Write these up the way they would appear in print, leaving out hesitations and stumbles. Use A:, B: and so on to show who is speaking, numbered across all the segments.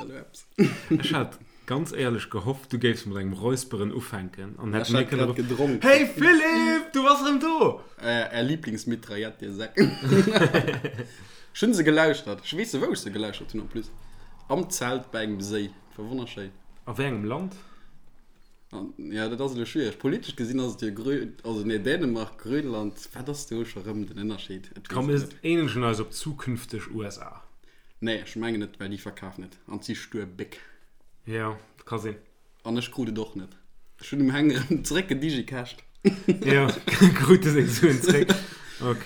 A: da elo eppes?
B: Ech hat ganz éierlech gehofft, du géifs mat engem Räusperen ufänken an
A: Ech
B: hätt mir
A: hat
B: kënne
A: grad gedronk.
B: Hey Philippe, du bass erëm do!
A: Är Lieblingsmitraillette, dir Säck. Ech hunn se gelauschtert. Ech weess wou ech se gelauschtert hunn en plus. Am Zelt bei engem Séi. Et war wonnerschéin.
B: A wéi engem Land?
A: An, ja, dat ass elo schwiereg. Politesch gesinn ass et jo Grö-, also nee, Dänemark, Grönland, wat ass do scho rëm den Ënnerscheed? Et
B: Komm,
A: weess
B: mir
A: et net.
B: eenegen eis op zukünfteg USA.
A: Nee, ech mengen net, well déi verkafen et an si stuer Béck.
B: Jo, ka sinn.
A: An ech krut et och net. Ech hunn dem Heng erëm zeréck gedigicasht.
B: Jo, krut de seng Suen zeréck. Ok.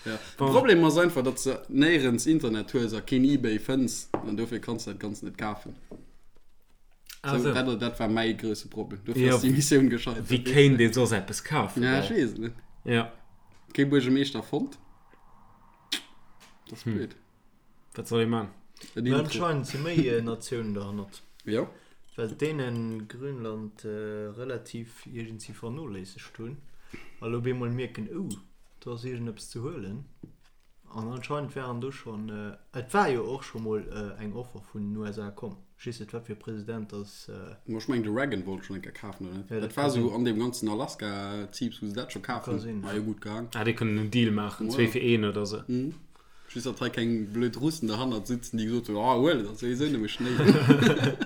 A: Ja.
B: Bon.
A: De Problem ass einfach, datt s de néierens Internet hues a keen Ebay fënns an dofir kanns de dat Ganzt net kafen.
B: Ah,
A: Sou,
B: sou.
A: dat, dat war mäi grousse Problem. Dofir
B: Jo,
A: ass déi Missioun gescheitert.
B: Wéi kéint ee soss eppes kafen?
A: Ja, ech weess et net.
B: Ja.
A: Kee Buergermeeschter fonnt. Dat ass blöd.
B: Wat soll ee man?
A: En
C: Mä
A: Intro.
C: anscheinend si méi Natiounen derhannert.
A: Jo.
C: Well d'Dänen Grönland relativ iergendsi vernoléissegt hunn a lo op eemol mierken, oh, do ass iergendeppes ze huelen. An anscheinend waren do schonn, et war jo och scho mol eng Offer vun den USA komm, ech weess net wat fir e President dass.
A: Ma ech mengen de Reagan wollt schonn eng Kéier kafen, oder net?
C: Ja, dat
A: Dat war
C: ka
A: sou
C: sinn.
A: an deem ganzen Alaska-Ziips, wou se dat scho kaf
C: Ka
A: hunn.
C: sinn,
A: War
C: ja.
A: jo gutt gaang.
B: Ah, déi kënnen en Deal maachen,
A: Voilà.
B: zwee fir een oder sou.
A: Mhm. Just datt hei keng blöd Russen derhannert sitzen, déi gesot hunn, ah huel et, ass souwisou nëmme Schnéi.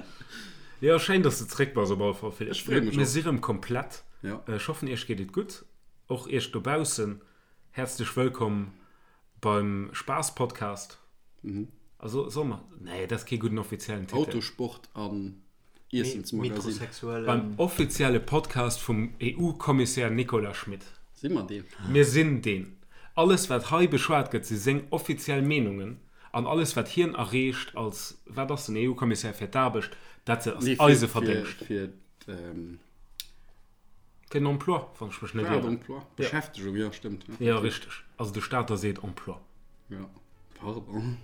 B: Jo, schéin dass de zréck bass op alle Fall, Philippe.
A: Ech freeë mech
B: Mir
A: och.
B: si rëm komplett.
A: Ja.
B: Ech hoffen iech geet et gutt, och iech dobaussen. Häerzlech wëllkomm beim Spaass-Podcast. Also soll mer, nee, dat ass kee gudden offiziellen Titel.
A: Autosport an Iessensmagazin.
C: Metrosexuellen.
B: Beim offizielle Podcast vum EU-Kommissär Nicolas Schmit.
A: Si mer deen?
B: Mir sinn deen. Alles wat hei beschwat gëtt si seng offiziell Meenungen an alles wat hien erreecht als, wat ass den EU-Kommissär fir d'Aarbecht, dat ass
A: Nee,
B: eise
A: fir,
B: Verdéngscht.
A: fir, fir
B: Fir den Emploi, wann ech mech net
A: War et
B: ieren.
A: Emploi? Beschäftegung, jo, stëmmt.
B: Jo, richteg. Also de Stater seet Emploi.
A: Jo, pardon.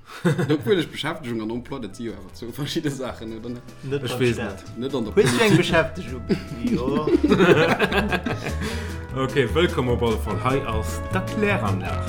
A: Obwuel ech Beschäftegung an Emploi, dat si jo awer zwou verschidde Saachen, oder net?
C: Net
B: Ech
C: beim
B: weess
C: Staat.
B: net.
A: Net an der
C: Hues du eng
A: Politik.
C: Beschäftegung? Jo.
B: Ok, wëllkomm op alle Fall. Hei ass d'Erkläranlag.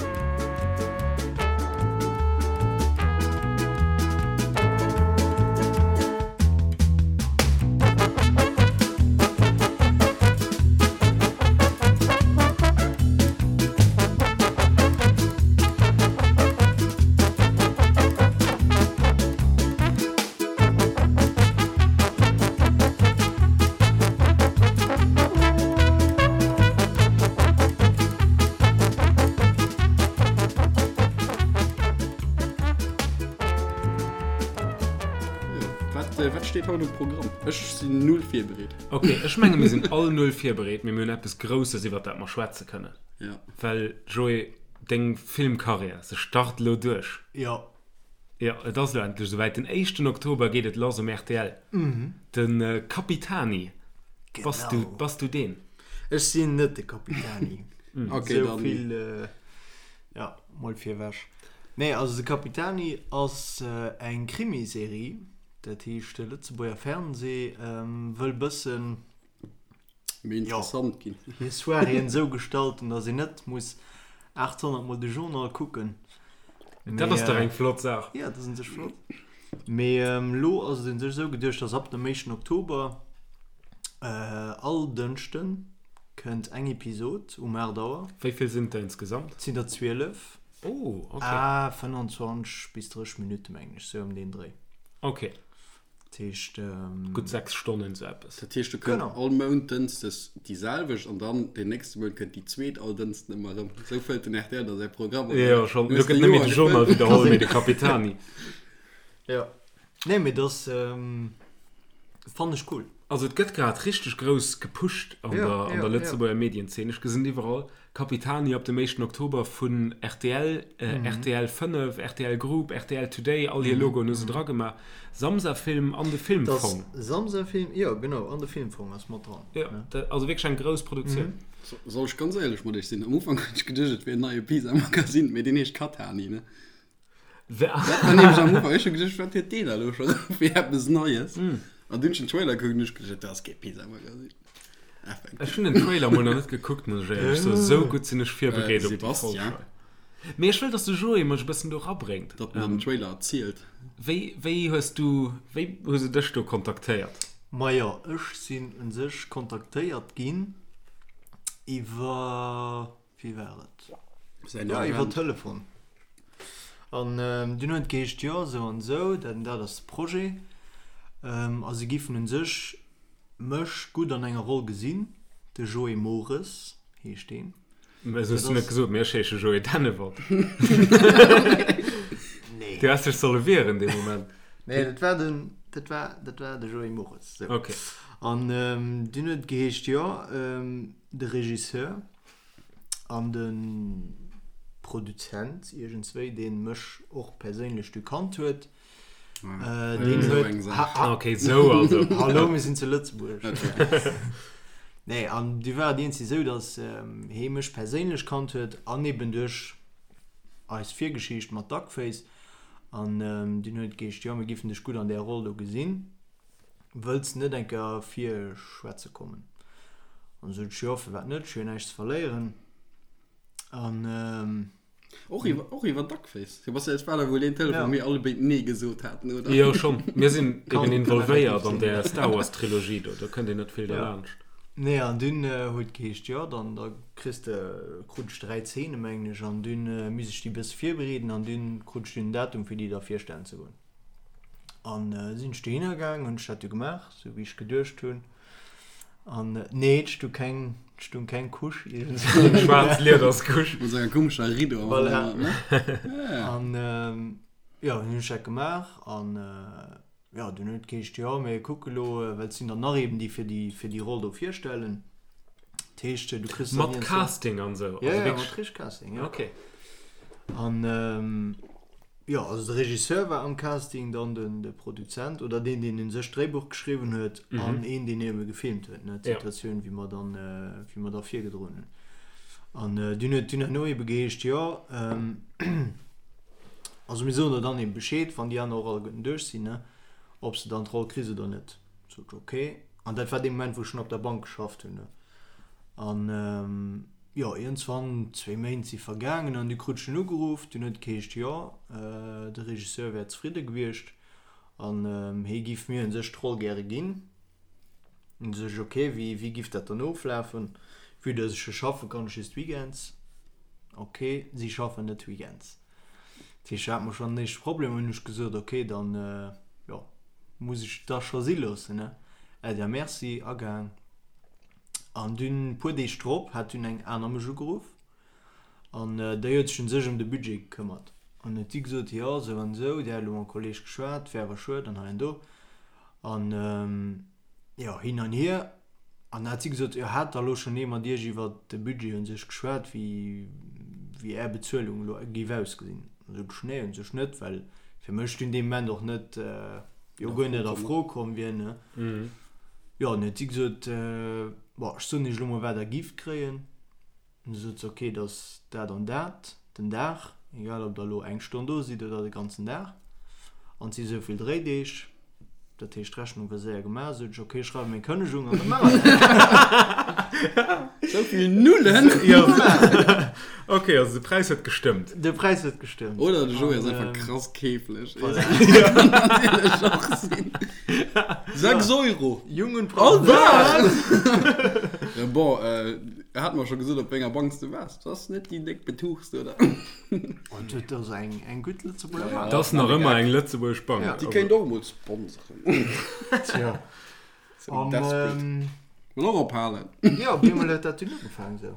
A: Wat, wat steet haut um Programm? Ech sinn null virbereet.
B: Ok, ech menge mir sinn all null virbereet, mee mir hunn eppes Grousses iwwert dat mer schwätze kënnen.
A: Ja.
B: Well, Joé, deng Filmkarriär, se start elo duerch.
C: Jo.
B: Jo, et ass elo endlech esouwäit. Den éischten Oktober geet et lass um rtl. De Capitani. Bass du,
C: Genau.
B: bass du deen?
C: Ech sinn net de Capitani.
A: Ok,
C: Esou
A: dann.
C: vill, ja, mol virwech. Nee, also de Capitani ass eng Krimiserie. Dat heescht, de Lëtzebuerger Fernsee wëll bëssen.
A: Méi interessant ginn.
C: Hir Soiréeën esou gestalten, datt een net muss 800 mol de Journal kucken.
B: Dat ass dach eng flott Saach.
C: Jo, dat ass un sech flott. Mee elo ass et un sech esou geduecht, datt ab dem éischten Oktober all Dënschde kënnt eng Episod um 8 Auer.
B: Wéi vill sinn et der insgesamt?
C: Et sinn der 12.
B: Oh, ok.
C: A 25 bis 30 Minutte mengen ech, sou ëm deen Dréi.
B: Ok.
C: Dat heescht.
B: Gutt 6 Stonnen, sou eppes.
A: Dat heescht, do kënnt
C: Genau.
A: all Mount dënschdes déi selwecht an dann deen nächste Mount kënnt déi zweet all Dënschden ëmmer erëm. Esou fëllt den rtl da säi Programm, oder?
B: Jo, schonn.
A: Du
B: Elo
A: hues
B: gëtt
A: de
B: net méi
A: Joer
B: de Journal
A: gefëllt.
B: widderholl, mee de Capitani.
C: Jo. Nee, mee dat fannen ech cool.
B: Also et gëtt grad richteg grouss gepusht an
C: Ja,
B: der, an
C: ja,
B: der
C: ja.
B: Lëtzebuerger Medienzeen. Ech gesinn iwwerall Capitani ab dem éischten Oktober vun rtl, rtl 5, rtl Group, rtl Today, all hir Logoen hu se dra gemaach. Samsa Film an de Filmfong.
C: Das Samsa Film, jo genau, an de Filmfong ass mat dran.
B: Jo, dat also wierklech eng grouss Produktioun.
A: Soll ech ganz éierlech mat iech sinn, am Ufank hunn ech geduecht et wier en neie Pisa-Magazin, mee deen heescht Katani, ne? Dat war nämlech am Ufank, ech hu geduecht, wat huet deen da elo scho fir eppes Neies? An dunn hunn ech den Trailer gekuckt an hunn ech geduecht, dat ass kee Pisa-Magazin. Effektiv.
B: Ech hunn den Trailer mol nach net gekuckt, muss ech éierlech soen. Esou gutt sinn ech virbereet op déi Folg
A: Sébastien.
B: hei. Mee ech wëll, dass de Joé mech e bëssen do rabréngt.
A: Datt en den Trailer erzielt.
B: Wéi, wéi hues du, wéi hu se dech do kontaktéiert?
C: Majo, ech sinn un sech kontaktéiert ginn iwwer, wéi war et?
A: Säin
C: Jo, iwwer
A: Agent.
C: Telefon. An dunn huet et geheescht, jo, esou an esou, dat an dat ass de Projet. A se giffen un sech mech gutt an enger Roll gesinn. De Joé Mores heescht deen.
B: Mä eso hues du net gesot, mee ech heesche Joé Dennewald.
C: Nee.
B: Du häss dech solle wieren dee Moment.
C: Nee, dat war den, dat war, dat war de Joé Mores. Sou.
B: Okay.
C: An dunn huet et geheescht, jo, de Regisseur an de Produzent iergendswéi, dee mech och perséinlech du kannt huet, Deen huet.
B: Ok, sou also.
C: Hallo, mir sinn zu Lëtzebuerg. Nee, an du war et iergendwéi sou, datt hee mech perséinlech kannt huet an eben duerch eis Virgeschicht mat Duckface. An dunn huet et geheescht, jo, mir giffen dech gutt an där Roll do gesinn, wëlls de net eng Kéier virschwätze kommen? An du sot ech, jo, firwat net, ech hu jo näischt ze verléieren. An.
A: Och iwwer, och iwwer Duckface. Sebastian, et war da wuel deen Telefon, wou mir alle béid Nee gesot haten,
B: oder? Jo, schonn. Mir sinn eben involvéiert an där Star Wars Trilogie do. Do kënnt een net vill derlaanscht.
C: Nee, an dunn huet geheescht, jo, dann da kriss de, krut ech 3 Zeene, mengen ech, an dunn misst ech déi bësse virbereeden an dunn krut ech dunn en Datum, fir déi da virstellen ze goen. An sinn ech dohinner gaang, hunn ech dat du gemaach, sou wéi ech geduecht hunn. An nee, et stu keng, et stung keng Couche
B: iergendswou. Schwaarz Liederscouche.
A: Mat senger komescher Riddo am
C: Voilà.
A: Hannergrond, ne? Ja.
C: An jo, dunn hunn ech dat gemaach an jo, dunn huet et geheescht, jo, mir kucke lo, well et sinn der nach eben, déi fir déi, fir déi Roll do virstellen. Dat heescht, du kriss
B: dann Mat Casting an esou?
C: Ja, ja, mat richteg Casting, ja.
B: Okay.
C: An Jo, also de Regisseur war am Casting, dann den de Produzent oder deen, deen un sech d'Dréibuch geschriwwen huet an een, deen ebe gefilmt huet, ne, d'Situatioun, wéi mer dann, wéi mer da virgedroen hunn. An dunn huet dunn herno ebe geheescht, jo, also mir soen der dann ebe Bescheed, wann déi aner och alleguerten duerch sinn, ne, ob s de dann d'Roll kriss oder net. Sot ech, ok. An dat war dee Moment, wou ech schonn op der Bank geschafft hunn, ne. An. Jo, iergendswann, zwéi Méint si vergaangen an du krut ech en ugeruff. Dunn huet et geheescht, jo, de Regisseur wär zefridde gewiescht an hie giff mir un sech d'Roll gäre ginn. Dunn sot ech, ok, wéi, wéi giff dat dann oflafen? Vue dass ech jo schaffen, kann ech just weekends. Ok, si schaffen net weekends. Dat heescht, do hate mer schonn den éischte Problem. Hunn ech gesot, ok, dann, jo, muss ech et da scho si loossen, ne? Äddi a merci, agaang. An dunn, puer Deeg drop, hat dunn eng aner mech ugeruff an déi huet sech un sech ëm de Budget gekëmmert. An huet si gesot, jo, esou an esou, dir hat elo mam Kolleg geschwat, wär awer schued an hei an do. An jo, hin an hier. An da hat si gesot, jo, hat da elo schonn ee mat iech iwwert de Budget un sech geschwat, wéi, wéi är Bezuelung elo géif ausgesinn? An sot ech, nee, un sech net, well fir mech dunn dee Moment och net, jo, guer net a Fro komm wier, ne. Jo, an huet si gesot, Bon, ech soen iech elo mol, wat der gift kréien. An du sot se, Ok, dat ass dat an dat den Dag, egal ob der elo eng Stonn do sidd oder de ganzen Dag. An et si sou vill Dréideeg. Dat heescht, d'Rechnung war séier gemaach. Sot ech, Ok, ech schreiwe meng Kënnegung an da maache mer dat.
A: Sou vill Nullen!
B: Jo, ok, also de Präis huet gestëmmt.
C: De Präis huet gestëmmt.
A: Oder de Joé ass einfach krass keeflech. Voilà. Kann natierlech och sinn. 6 Euro!
C: Jungen
A: All Dag! Ja, bon, äh, er hat mer scho gesot, op wénger Bank s du waars. Dat ass net déi déck betuchst, oder?
C: Oh, dat ass eng, eng gutt Lëtzebuerger Bank.
B: Dat ass nach ëmmer eng lëtzebuergesch Bank.
A: Déi kéint och emol sponseren.
C: Tja.
A: Sou desperate.
C: An,
A: Wëll och ophalen.
C: Jo, op eemol huet dat dunn ugefaangen esou.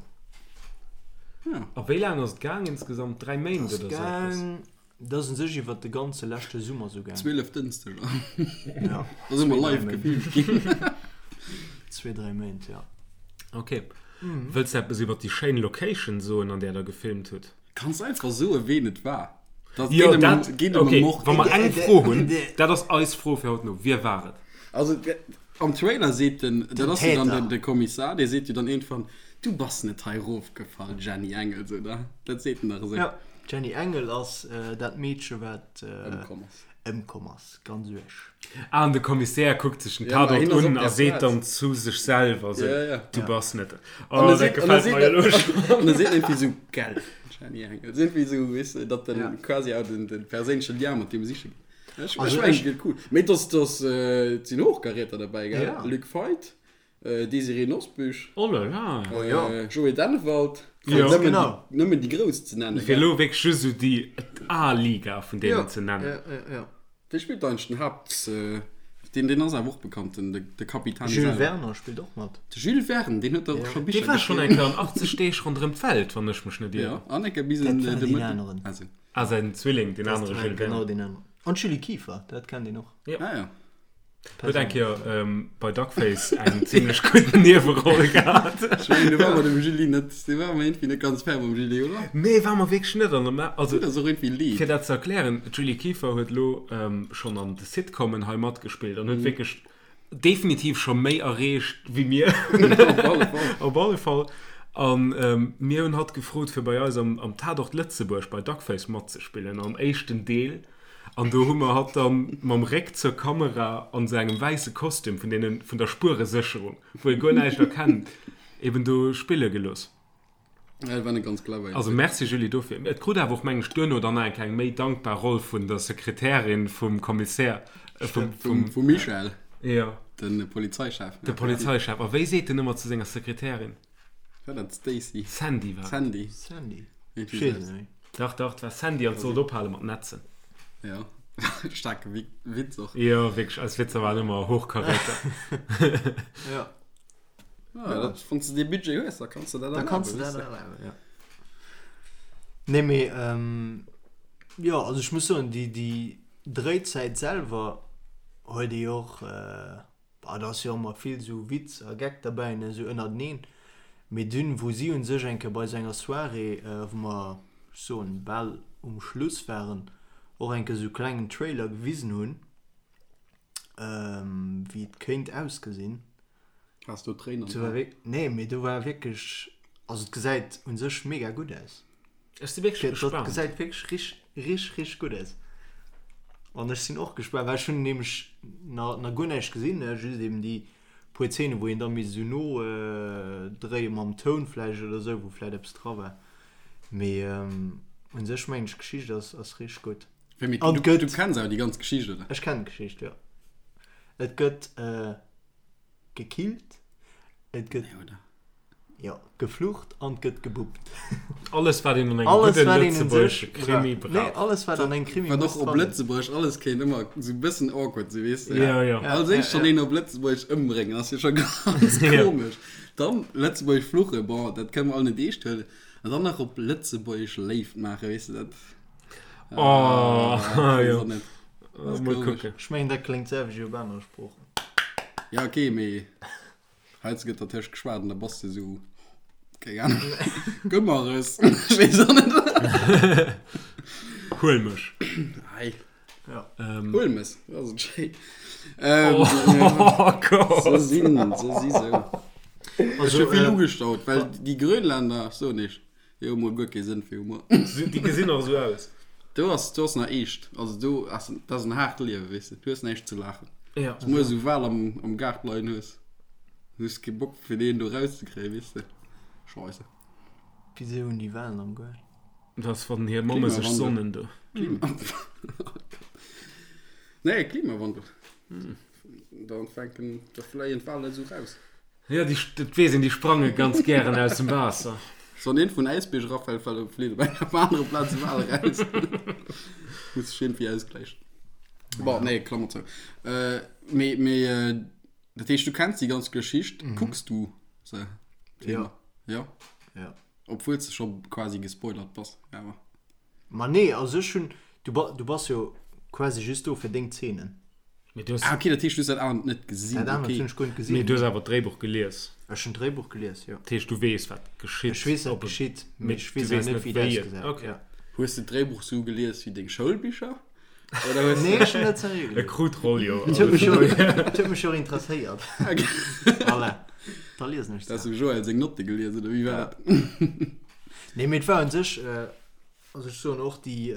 A: Ja.
B: A wéi laang ass et gaang insgesamt? 3 Méint
C: Ass
B: oder sou eppes?
C: gaang, dat ass un sech iwwert de ganze leschte Summer sou gaang.
A: 12 Dënschdeger.
C: Ja.
A: Da si mer live gefilmt ginn.
C: Zwee, dräi Méint, ja.
B: Ok. Wëlls de eppes iwwert déi schéin Location soen, an där der gefilmt hutt?
A: Kanns einfach soen, ween et war. Dat
B: Jo,
A: geet ëm
B: dat,
A: geet ëm
B: ok,
A: e Mord.
B: wa mer eng Fro hunn, dat ass eis Fro fir haut no, Wie war et?
A: Also am Trailer seet den, dat ass jo dann
C: Täter.
A: den, de Kommissar, dee seet jo dann iergendwann, Du bass net hei erofgefall, Jenny Engels, oder? Dat seet en dach esou.
C: Ja, d'Jenny Engel ass dat Meedche wat
A: Ëmkomm ass.
C: Ëmkomm ass, ganz uerg.
B: Ah, an de Kommissär kuckt sech den Tatort un a seet dann zu sech selwer sou, Du bass net. Oh, dat gefält mer jo elo
A: schonn. An e seet iergendwéi sou, Gell, Jenny Engel. Et ass iergendwéi sou, weess de, datt en quasi auch den, den perséinleche Lien mat deem siche geet. Ech, ech mengen, et gëtt cool. Mee et ass, et ass, et sinn Hochkaräter derbäi, gell? Luc Feit. Désirée Nosbusch,
B: Oh là là.
A: Oh ja. Joé Dennewald, fir
B: Jo.
A: nëmmen
C: Genau.
A: déi, nëmmen déi Grouss ze nennen,
B: Fir
A: gell?
B: elo wierklech just esou déi A-Liga vun deenen
C: Ja,
B: ze nennen.
C: ja, ja, ja.
A: Wee spillt eigentlech den Haapt, deen, deen ass awer och bekannt, den, de Capitani
C: Jules
A: selwer.
C: Werner spillt och mat.
A: De Jules Verne, deen huet dach och scho
B: Dee
A: Bicher
B: war schonn
A: geschriwwen.
B: eng Kéier an 80 Deeg ronderëm d'Welt, wann ech mech net
A: Ja,
B: ieren.
A: an eng Kéier bis
C: Dat
A: en
C: war
A: de
C: deen
A: Mëtten.
C: aneren.
A: Also.
B: Ah, säin Zwilling, deen
C: Dat
B: anere
C: war
B: Jules
C: genau
B: Verne.
C: deen aneren. An d'Julie Kieffer, dat kennt een och.
B: Ja.
A: Ah ja.
B: Huet eng Kéier bei Duckface eng zimlech gutt Nieweroll gehat.
A: Ech mengen, do war mer dem Julie net, do war mer iergendwéi net ganz fair mam Julie, oder?
B: Nee, war mer wierklech net. An also,
A: Tut eis och iergendwéi leed.
B: fir dat ze erklären, d'Julie Kieffer huet elo schonn an de Sitcomen hei matgespillt an huet wierklech definitiv scho méi erreecht wéi mir.
A: Op alle Fall.
B: Op alle Fall. An mir hunn hatt gefrot, fir bei eis am Tatort Lëtzebuerg bei Duckface matzespillen, am éischten Deel. An do hu mer hatt dann mam Réck zur Kamera an sou engem wäisse Kostüm vun deenen vun der Spueresécherung, wou ee guer näischt erkennt, eben do spille gelooss.
A: Ja, dat war net ganz clever.
B: Also merci Julie dofir. Et krut awer och meng ech duerno dann nach eng kleng méi dankbar Roll vun der Sekretärin vum Kommissär, vum,
A: Vum, vum Michel,
B: jo,
A: de Polizeichef.
B: de Polizeichef. A wéi seet en ëmmer zu senger Sekretärin?
A: War dat d'Stacy?
B: Sandy war et.
A: Sandy.
C: Sandy.
A: Irgendwie
C: Ech weess
A: sou.
C: et net méi.
B: Dach, dach, et war Sandy an et sollt ophale mat netzen.
A: Ja, staarke Witz och.
B: Jo, wierklech, eis Witzer waren ëmmer Hochkaräter.
C: Ja.
A: Ja, dat, wann s de dee Budget hues, da kanns de dat
C: Da kanns
A: erlaben,
C: de dat
A: weess de.
C: erlaben, ja. Nee, mee, jo, also ech muss soen, déi, déi Dréizäit selwer huet ee jo och, Bah, da ass jo ëmmer vill sou Witz a Geck derbäi, ne, sou ënnerteneen. Mee dunn, wou si un sech eng Kéier bei sou enger Soirée, wou mer, ech soen, bal um Schluss waren, och eng Kéier sou klengen Trailer gewisen hunn, wéi et kéint ausgesinn.
A: Has do Tréinen
C: an den Aen? Nee, mee do war wierklech, also et gesäit un sech mega gutt aus.
B: Ech si wierklech
C: Dat
B: gespaant.
C: gesäit wierklech rich, rich, rich gutt aus. An ech sinn och gespaant, well ech hunn nämlech na, na guer näischt gesinn, ne, just eben déi puer Zeenen, wou een da misst esou no dréie mam Toun vläicht oder esou, wou vläicht eppes dra war. Mee un sech mengen ech, d'Geschicht ass, ass rich gutt.
A: Wéi, mee
C: An
A: du,
C: gëtt.
A: du kenns awer déi ganz Geschicht, oder?
C: Ech kennen d'Geschicht, jo. Et gëtt gekillt, et gëtt.
A: Nee, oder?
C: Jo, geflucht an 't gëtt gebuppt.
B: Alles wat een an engem
C: Alles
B: gudde
C: wat een un
B: lëtzebuergesche
C: sech
B: Krimi
C: brauch. Nee,
B: brauch.
C: alles wat an engem Krimi
A: Wat
C: muss
A: och op
C: dran sinn.
A: Lëtzebuergesch alles kéint ëmmer sou e bëssen awkward sinn, weess de.
B: Ja, ja.
A: Als éischt schonn een op Lëtzebuergesch ëmbréngen ass jo scho ganz komesch. Dann Lëtzebuergesch fluchen, bon, dat kënne mer all net eescht huelen. An dann nach op Lëtzebuergesch Léift maachen, weess de, dat.
B: Oh,
A: Ah,
B: jo.
A: weess och net.
B: Mol
A: komesch.
B: kucken.
C: Ech mengen dat kléngt d'selwecht wéi op anere Sproochen.
A: Ja, okay, mee Heiansdo gëtt dertëscht geschwat an da bass de sou, keng Ahnung, Gëmmeres, ech weess och net.
B: Huel mech.
A: Ei.
C: Ja.
B: Ähm.
A: Huel mech, dat ass et schéin. Ähm,
B: Oh Gott.
A: Se sinn, se si sou. Ech
C: Also,
A: hu vill
C: äh,
A: ugestaut, well déi Grönländer, soen ech, déi hu mol guer kee Sënn fir Humor.
B: Déi gesinn och esou aus.
A: Do ass, do ass nach eescht. Also do ass, dat ass en haart Liewen, weess de. Du hues näischt ze laachen.
B: Ja.
A: Wann du esou Wal am, am Gaart leien hues, du hues kee Bock fir deen do rauszekréien, weess de. Scheisse.
C: Wisou hunn déi Walen am Gaart?
B: Dat ass wann hir Mamme sech
A: Klimawandel.
B: sonnen do.
A: Klima. Nee, Klimawandel. Da fänken, da fléien d'Walen esou raus.
B: Jo, déi, dat weess een, déi sprange ganz gären aus dem Waasser.
A: Wann een vun Äisbierg erafält, fält op flitt op enger anere Plaz e Wal eraus. Muss sech iergendwéi ausgläichen. Bon, nee, Klammer zou. Äh, mee, mee, äh, dat heescht, du kenns déi ganz Geschicht. Kucks du se?
C: Jo.
A: Jo?
C: Jo.
A: Obwuel s de scho quasi gespoilert bass, awer.
C: Ma nee, also ech hunn, du ba, du bass jo quasi just do fir deng Zeenen.
B: Mee du hues.
A: Ah, okay, dat heescht, du hues dat anert net gesinn.
C: Dat anert
A: Okay.
C: hunn ech guer net gesinn.
B: Mee du hues awer d'Dréibuch gelies.
C: Ech hunn d'Dréibuch gelies, jo.
B: Dat heescht, du weess, wat geschitt.
C: Ech weess, wat
B: Op e-
C: geschitt,
B: mee
C: mee ech
B: du
C: weess
B: weess
C: awer net,
B: net,
C: wéi et
B: wéi et.
C: ausgesäit.
B: Okay.
C: Ja.
A: Hues de d'Dréibuch sou gelies wéi deng Schoulbicher? Oder hues
C: Nee, ech hunn dat seriö
B: E
C: gelies.
B: krut d'Roll jo.
C: Et huet mech jo, et huet mech jo interesséiert. Voilà. Da liesen ech
A: Da
C: se.
A: hues du Joël seng Notte gelies, oder wéi war dat?
C: Nee, mee et war un sech, Also ech soen och déi,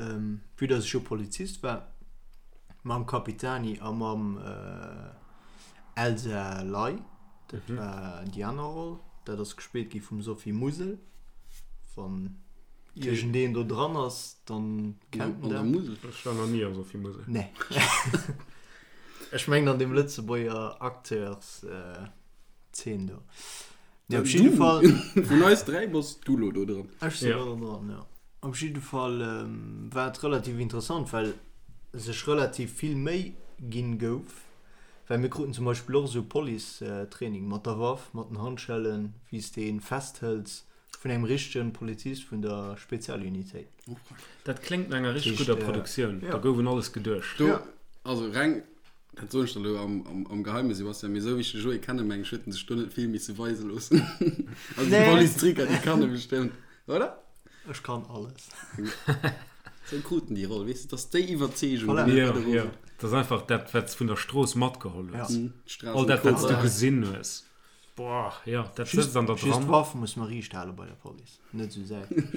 C: vue dass ech jo Polizist war, Mam Capitani a mam Elsa Ley, dat war déi aner Roll. Dat ass gespillt gi vum Sophie Musel. Wann iergendeen do dran ass, dann kennt en
A: dat. An der Musel?
B: Ech war nach ni am Sophie Musel.
C: Nee. Ech mengen an deem Lëtzebuerger Acteurs Zeen do. Nee, op jidde Fall.
A: Vun eis 3 bass du lo do dran.
C: Ech sinn lo do dran, jo. Op jidde Fall war et relativ interessant, well sech relativ vill Méi ginn gouf, well mir kruten zum Beispill och esou Police-Training mat der Waff, mat den Handschellen, wéi s de een festhëls, vun engem richtegen Polizist vun der Spezialunitéit.
B: Dat kléngt no enger richteg gudder Produktioun, do gouf un alles geduecht.
A: Do, also reng Dat soen ech der elo am Geheimen, Sebastian, mee esou wéi ech de Joé kennen, meng ech, huet en sech do net vill misse weise loossen. Also déi Police-Tricker, déi kann e bestëmmt, oder?
C: Ech kann alles.
A: Esou krut en déi Roll, weess de, dass déi Iwwerzeegung,
B: déi mir do Ja, ja. Dat ass einfach dat, wat s vun der Strooss matgeholl hues. All dat, wat s du gesinn hues. Boah, jo, dat sëtzt an der
C: dran. Just d'Waff muss mer riicht hale bei der Police, net esou säitlech.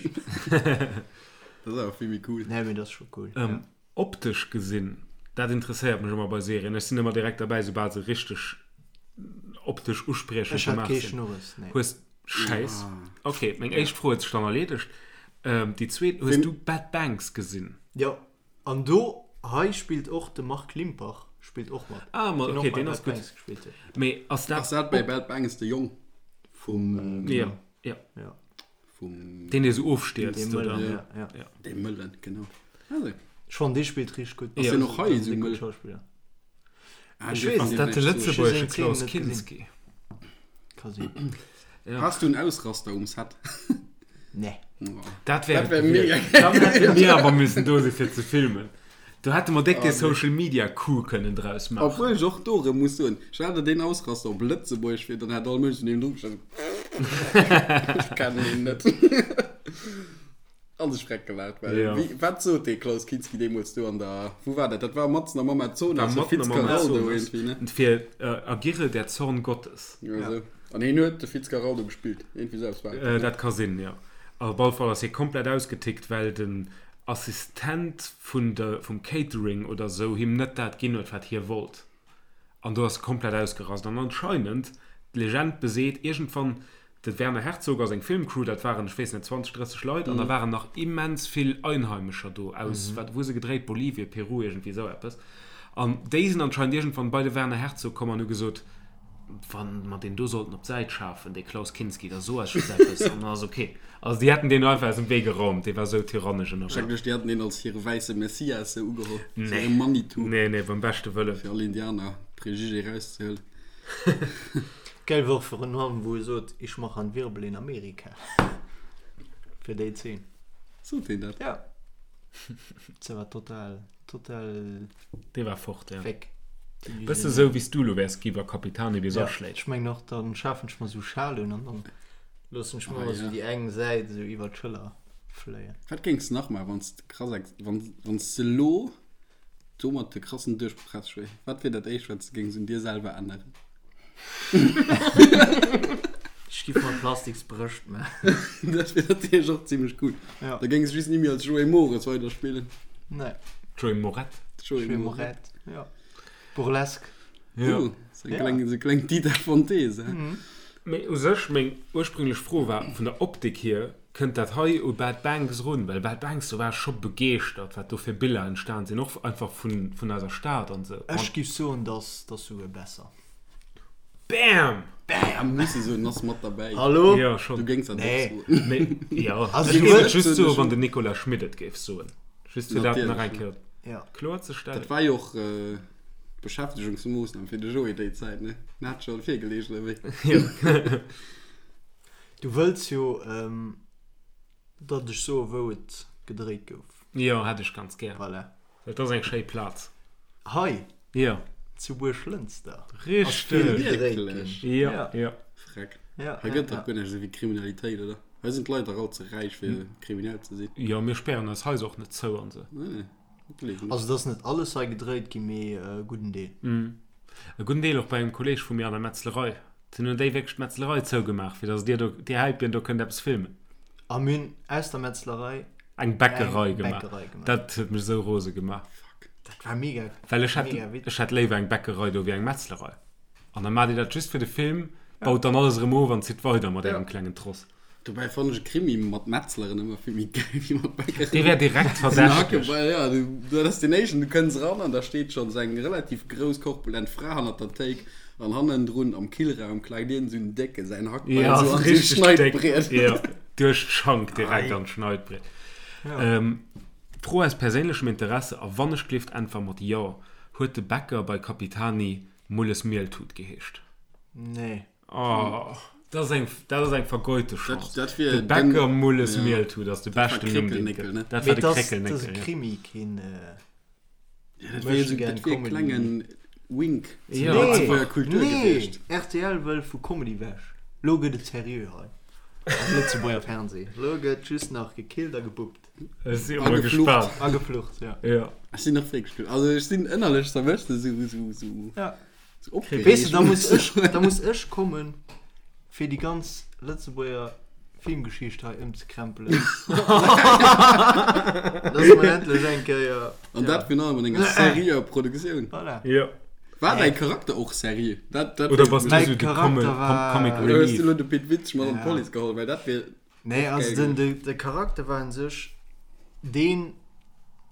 A: Dat ass awer vill méi cool.
C: Nee, mee dat ass scho cool.
B: Optesch gesinn, dat interesséiert mech ëmmer bei Serien. Ech sinn ëmmer direkt derbäi, soubal se richteg optesch uspriechend
C: Ech hat
B: gemaach
C: kee
B: sinn.
C: Schnurres, nee.
B: Hues Schäiss. Ok, meng éischt Fro huet sech dann erleedegt. Déi zweet, hues du Bad Banks gesinn?
C: Jo, an do hei spillt och de Marc Limpach spillt och mat.
B: Ah, ma
C: Deen
B: ok,
C: och bei
B: deen ass
C: Bad
B: gutt.
C: Banks gespillt huet.
B: Mee ass dat
A: Ass dat bei
B: op.
A: Bad Banks de Jong vum.
B: Jo, jo.
C: Jo.
A: Vum.
B: Deen, dee sou ofstierzt,
C: Dee
B: oder?
C: Mëllen, ja, ja.
B: Ja.
A: Dee Mëllen, genau. Also.
C: Ech fannen, dee spillt richteg gutt.
A: Ass deen och hei
C: esou
A: esou mëll?
C: Schauspiller.
A: Ah,
C: Ech
A: dee
C: weess
A: fand
B: Ass dat de
A: ich vielleicht so.
B: lëtzebuergesche
C: Ech hu seng
B: Klaus
C: Zeen net gesinn.
B: Kinski?
C: Ka sinn.
B: Ja.
A: Has du en Ausraster um Set?
C: Nee.
A: Oh.
B: Dat wär
A: Dat
B: et
A: wär mega
B: gewiescht. Dann hätte mir awer müssen do si fir ze filmen. Do hätte mer déck
A: Oh,
B: dee
A: nee.
B: Social Media Coup kënnen draus maachen.
A: Obwuel ech och do erëm muss soen, stell der deen Ausraster op Lëtzebuergesch vir, dann hätt all Mënsch niewendru gestanden, Ech kennen deen net. An sech freck gelaacht, well
B: Ja.
A: wéi, wat sot dee Klaus Kinski deemools do an der, wou war dat? Dat war matzen am Amazonas,
B: War
A: de
B: matzen am
A: Fitzcarraldo
B: Amazonas.
A: iergendwéi, ne?
B: Fir äh, Agirre der Zorn Gottes.
A: Ja, esou. An hien huet de Fitzcarraldo gespillt, iergendwéi esou eppes war et.
B: Äh, dat ka sinn, jo. Op alle Fall ass hie komplett ausgetickt, well den Assistent vun de, vum Catering oder sou him net dat ginn huet, wat hie wollt. An do ass e komplett ausgerast. An anscheinend, d'Legend beseet, iergendwann, de Werner Herzog a seng Filmcrew, dat waren, ech weess net, 20, 30 Leit, an da waren nach immens vill Einheimescher do aus, wat, wou hu se gedréit, Bolivien, Peru, iergendwéi esou eppes. An déi sinn anscheinend iergendwann bei de Werner Herzog komm an hu gesot, Wa mer deen do sollten op d'Säit schafen, dee Klaus Kinski, da so eis just eppes an dann ass ok. Also déi hätten deen einfach aus dem Wee geraumt, dee war sou tyrannesch ënnerwee.
A: Schrecklech, déi haten deen als hire wäisse Messias sou ugeholl, sou
B: Nee.
A: hire Manitou.
B: Nee, nee, beim beschte Wëllen.
A: Fir all Indianer Préjugé erauszehuelen.
C: Geil war och virun allem wou e sot, ich mach an Wirbel in Amerika. Fir déi Zeen.
A: Sot deen dat?
C: Ja. Se war total. Total.
B: Dee war fort, ja.
C: Weg.
B: Bësse sou wéi s du elo wäers gi wa Capitani bis
C: Ja,
B: aschléit.
C: ech mengen och, dann schafen ech mer sou Schal un an dann loossen ech mer
A: Ah,
C: ëmmer sou
A: ja.
C: déi eng Säit sou iwwer d'Schëller fléien.
A: Wat géings de nach maachen, wann s de krass ex-, wann, wann s de elo domat de krassen Duerchbroch häss, Joé? Wat wier dat éischt, wat s de géings un dir selwer änneren?
C: Ech giff mer plastiks Brëscht maachen.
A: Dat wier natierlech och zimmlech cool.
C: Ja.
A: Da géings de just ni méi als Joé Mores weiderspillen.
C: Nee.
B: Joé Moret.
A: Joé
C: Joé
A: Moret.
C: Moret, ja. Burlesque.
B: Ja.
A: Uh, sou eng
C: Ja.
A: kleng, sou kleng Dita Von Teese.
C: Mhm.
B: Mee u sech, meng ursprünglech Fro war, vun der Optik hier, kënnt dat hei u Bad Banks erun? Well Bad Banks, do war ech scho begeeschtert, wat do fir Biller entstan sinn, och einfach vun, vun eiser Stad an sou.
C: Ech giff soen, dass, dass souguer besser.
B: Bam!
A: Bam! Muss e soen, ass mat derbäi.
C: Hallo?
B: Ja, schon.
A: Du géings dat och
C: Nee.
A: soen.
B: Mee, ja,
C: Also
B: ech
C: du
B: géif et
C: wëlls-
B: just soen, wann den Nicolas Schmit et géif soen. Just fir dat nach eng
A: Natierlech,
B: Kéier
C: Ja.
B: kloer ze stellen.
A: Dat war jo och d'Beschäftegungsmoossnam fir de Joé déi Zäit, ne? En hat scho virgeleecht, oder wéi?
B: Jo.
C: Du wëlls jo, datt ech soe wou et gedréit gouf.
B: Jo, hätt ech ganz gär.
C: Voilà.
B: Dat ass eng schéi Plaz.
C: Hei
B: Jo.
C: zu Buerglënster.
B: Richteg.
A: Wierklech?
B: Jo,
C: Ja.
B: jo.
A: Freck.
C: Ja,
A: Hei
C: ja,
A: gëtt dach
C: ja.
A: guer näischt esou wéi Kriminalitéit, oder? Hei sinn d'Leit dach all ze räich fir kriminell ze sinn.
B: Jo, mir spären eis Haiser och net zou an sou.
A: Nee, dat gleef ech net.
C: Also et ass net alles hei gedréit ginn, mee e gudden Deel.
B: E gudden Deel och bei engem Kolleeg vu mir an der Metzlerei. Dunn hunn déi wierklech d'Metzlerei zougemaach, fir datt dir do, dir Häipien do kënnt eppes filmen.
C: A mir hunn aus der Metzlerei
B: Eng Bäckerei
C: eng
B: gemaach.
C: Bäckerei gemaach.
B: Dat huet mech esou rose gemaach.
A: Fuck.
C: Dat war mega,
B: Well ech hätt,
C: mega witzeg.
B: ech hätt léiwer eng Bäckerei do wéi eng Metzlerei. An da maacht Dir dat just fir de Film, baut dann alles erëm of an zitt weider mat ärem klengen Tross.
A: Dobäi fannen ech e Krimi mat Metzleren ëmmer vill méi gäil wéi mat Bäckeren.
B: Dee wär direkt verdächteg.
A: Ja, du, dat ass deen éischten, du kënns eran an da steet schonns eng relativ grouss, korpulent Fra hannert der Théik an hannendrun am Killraum klaakt iergend esou en Décke säin Hackbeil
B: Ja,
A: esou
B: ass
A: an esou
B: richteg déck.
A: Schneidbriet.
B: Ja, duerch d'Schank direkt an d'Schneidbriet. Fro aus perséinlechem Interesse, a wannechgelift äntwer mat Jo, Huet de Bäcker bei Capitani Mulles Mieltut geheescht?
C: Nee.
B: Oh, dat ass eng, dat ass eng vergeute Chance.
A: Dat wier
B: De
A: den-
B: Bäcker Mulles
A: ja.
B: Mieltut ass de
A: Dat war
B: beschten Numm, deen et
A: Kréckelnéckel,
B: gëtt.
A: ne?
B: Dat
C: Mee
B: war de
C: dat ass, dat ass
B: Kréckelnéckel,
C: e
B: ja.
C: Krimi, keen.
A: Ja, dat wier esou, dat wier e klengen Wink zur
B: Ja.
A: Lëtzebuerger Kultur
C: nee,
A: gewiescht.
C: RTL wëll vu Comedy wech. Lo gëtt et seriö hei am Lëtzebuerger Fernseh. Lo gëtt just nach gekillt a gebuppt.
B: Ech si emol
A: A geflucht.
B: gespaant.
C: A geflucht, ja.
B: Ja.
A: Ech sinn och wierklech gespaant. Also ech sinn ënnerlech zerwëscht esou, esou, esou.
C: Ja.
A: esou opgeregt.
C: Weess de, da muss ech, da muss ech kommen, fir déi ganz Lëtzebuerger Filmgeschicht hei ëmzekrempelen. Dass mer endlech eng Kéier.
A: An dat virun allem an enger seriöer Produktioun.
C: Voilà.
B: Ja.
A: War däi Charakter och seriö? Dat, dat
B: Oder bass du
C: Mäi
B: esou de
C: Charakter
B: Comic,
C: war-
B: Comic
A: Oder hues du
B: Relief?
A: elo de Pit Witzsch mat an
C: Ja.
A: d'Police geholl? Well dat wier.
C: Nee,
A: Och
C: also
A: geil
C: den, de, de Charakter war un sech deen,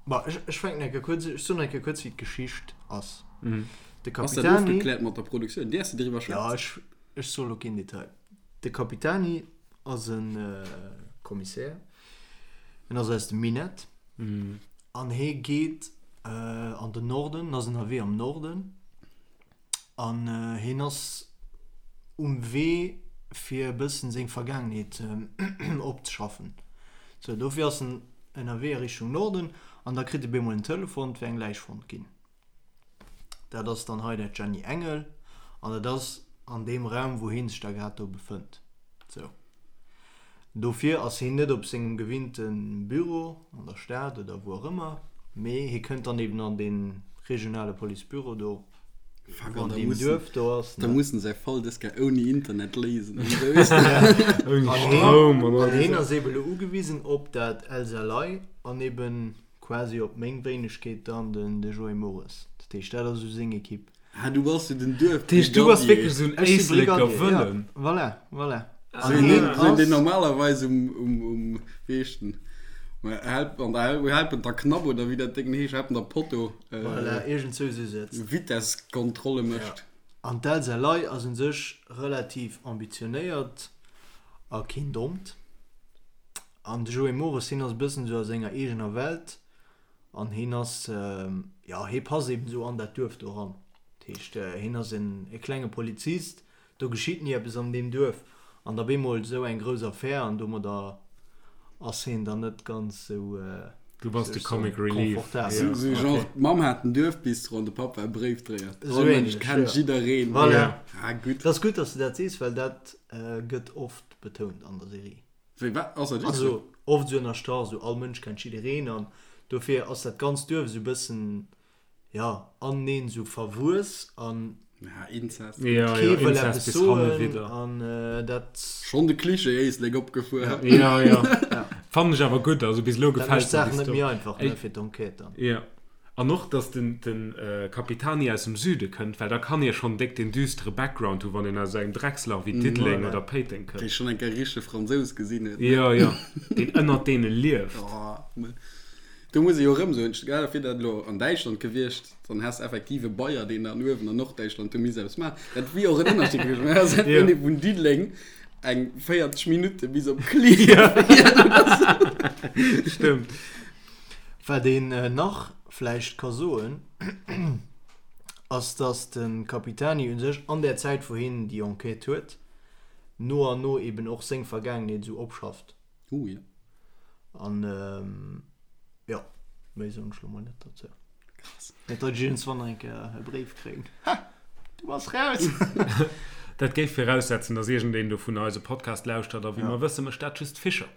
C: bon, ech, ech fänken eng Kéier kuerz, ech soen eng Kéier kuerz, wéi d'Geschicht ass.
B: Mhm.
C: De
A: Ass dat
C: Capitani,
A: ofgekläert mat der Produktioun? Däerfs de driwwer
C: ja,
A: schwätzen?
C: ech, ech soe lo keen Detail. De Capitani ass e Kommissär, en ass aus dem Minett
B: Mhm.
C: an hie geet an den Norden, en ass ënnerwee am Norden An hien ass um Wee fir e bëssen seng Vergaangenheet opzeschaffen. Sou, dofir ass en ënnerwee a Richtung Norden an da kritt e bemol en Telefon, et wär eng Läich fonnt ginn. Dat ass dann hei dat Jenny Engel an dat ass an deem Raum, wou hie sech da grad do befënnt. Sou. Dofir ass hien net op sengem gewinnte Büro an der Stad oder wou och ëmmer, mee hie kënnt dann eben an dee regionale Policebüro do,
A: Fuck,
C: wou
A: an
C: an
A: da
C: deem
A: mussen,
C: Duerf do ass,
A: da
C: ne?
A: mussen säi Fall dës Kéier ouni Internet léisen an esou, weess de.
B: Ouni
C: An hien,
B: Stroum an all
C: an
B: déi
C: hien ass
B: Saachen.
C: eben elo ugewisen op dat Elsa Ley an eben quasi op meng Wéinegkeet dann den de Joé Mores. Dat heescht, dat ass esou seng Equipe.
A: Ah, du bass jo den Duerf.
B: Dat heescht, du bass wierklech esou en
C: Ech si
B: Éisleker
C: Brigadier, ja.
B: Wëllen.
C: Voilà, voilà.
A: Sou een, deen, sou een, deen normalerweis um, um, um, wéi heescht den, Help, an der, Helpen der Knapp oder wéi dat Déngen heescht, Helpen der Potto, äh,
C: Voilà, iergend sou sou sëtzt.
A: Vitesskontrolle mécht.
C: Ja. An d'Elsa Ley ass un sech relativ ambitionéiert a keen Dommt. An de Joé Mores, hien ass e bëssen sou a senger eegener Welt. An hien ass, jo, hie passt eben esou an dat Duerf do eran. Dat heescht, hien ass en e klenge Polizist, do geschitt ni eppes an deem Duerf. An da bemol esou eng grouss Affär an domadder ass hien dann net ganz esou,
B: Du bass
C: wéi
B: de
C: soll ech soen,
B: Comic Relief.
C: confortabel.
A: Sou, sou genre, d'Mamm hat en Duerfbistro an de Papp war Bréifdréier.
C: Esou
A: All Mënsch
C: ähnlech,
A: kennt
C: jo.
A: jiddereen.
C: Voilà.
A: Ah, gutt.
C: Et ass gutt, dass du dat sees, well dat gëtt oft betount an der Serie.
A: Wéi, wat? Ass dat wierklech sou?
C: Also oft esou ënnerstrach, esou all Mënsch kennt jiddereen an dofir ass dat ganzt Duerf esou e bëssen, jo, aneneen esou verwuess an
A: Ja, Inzest.
B: Ja,
C: kee
B: ja,
C: wëll
B: Inzest
C: eppes
B: bis hanne
C: soen
B: widder.
C: an dat,
A: Schonn de Klischee Éislek opgefuer.
B: Ja, ja.
C: ja,
B: Fannen ech awer gutt, also bis elo
C: dat
B: gefält
C: mécht
B: mer
C: d'Saach
B: déi
C: net
B: Story.
C: méi einfach, ne,
B: Ey,
C: fir d'Enquête dann.
B: Ja. An och, dass den, den Capitani aus dem Süde kënnt, well da kann ee schonn déck den düstere Background hu wann een aus engem Dreckslach wéi Diddeleng
C: Voilà.
B: oder Péiteng
A: Dee
B: kënnt.
A: schonn eng Kéier richtege Fransous gesinn huet, ne?
B: Jo, jo, deen ënnert deene lieft.
A: Oh, me do muss ee jo erëm soen, stell der vir, dat elo an Däitschland gewiescht, dann häss effektiv e Bayer, deen dann uewen an Norddäitschland do misst eppes maachen. Dat wier och en Ënnerscheed gewiescht. Mä ass
B: Jo.
A: een vun Diddeleng eng 40 Minutte bis op Klierf fiert oder sou.
B: Stëmmt.
C: Wat een nach vläicht ka soen, ass dass de Capitani u sech an där Zäit wou hien déi Enquête huet, no an no eben och seng Vergaangenheet esou opschafft.
A: Oh jo.
C: An jo, méi soen ech lo mol net dozou.
A: Krass.
C: Net datt ech iergendswann nach eng Kéier e Bréif kréien, Ha! Du bass raus!
B: Dat géif viraussetzen, dass iergendeen dovunner eise Podcast lauschtert, a wéi
C: Ja.
B: mer wësse mécht dat just Fischer.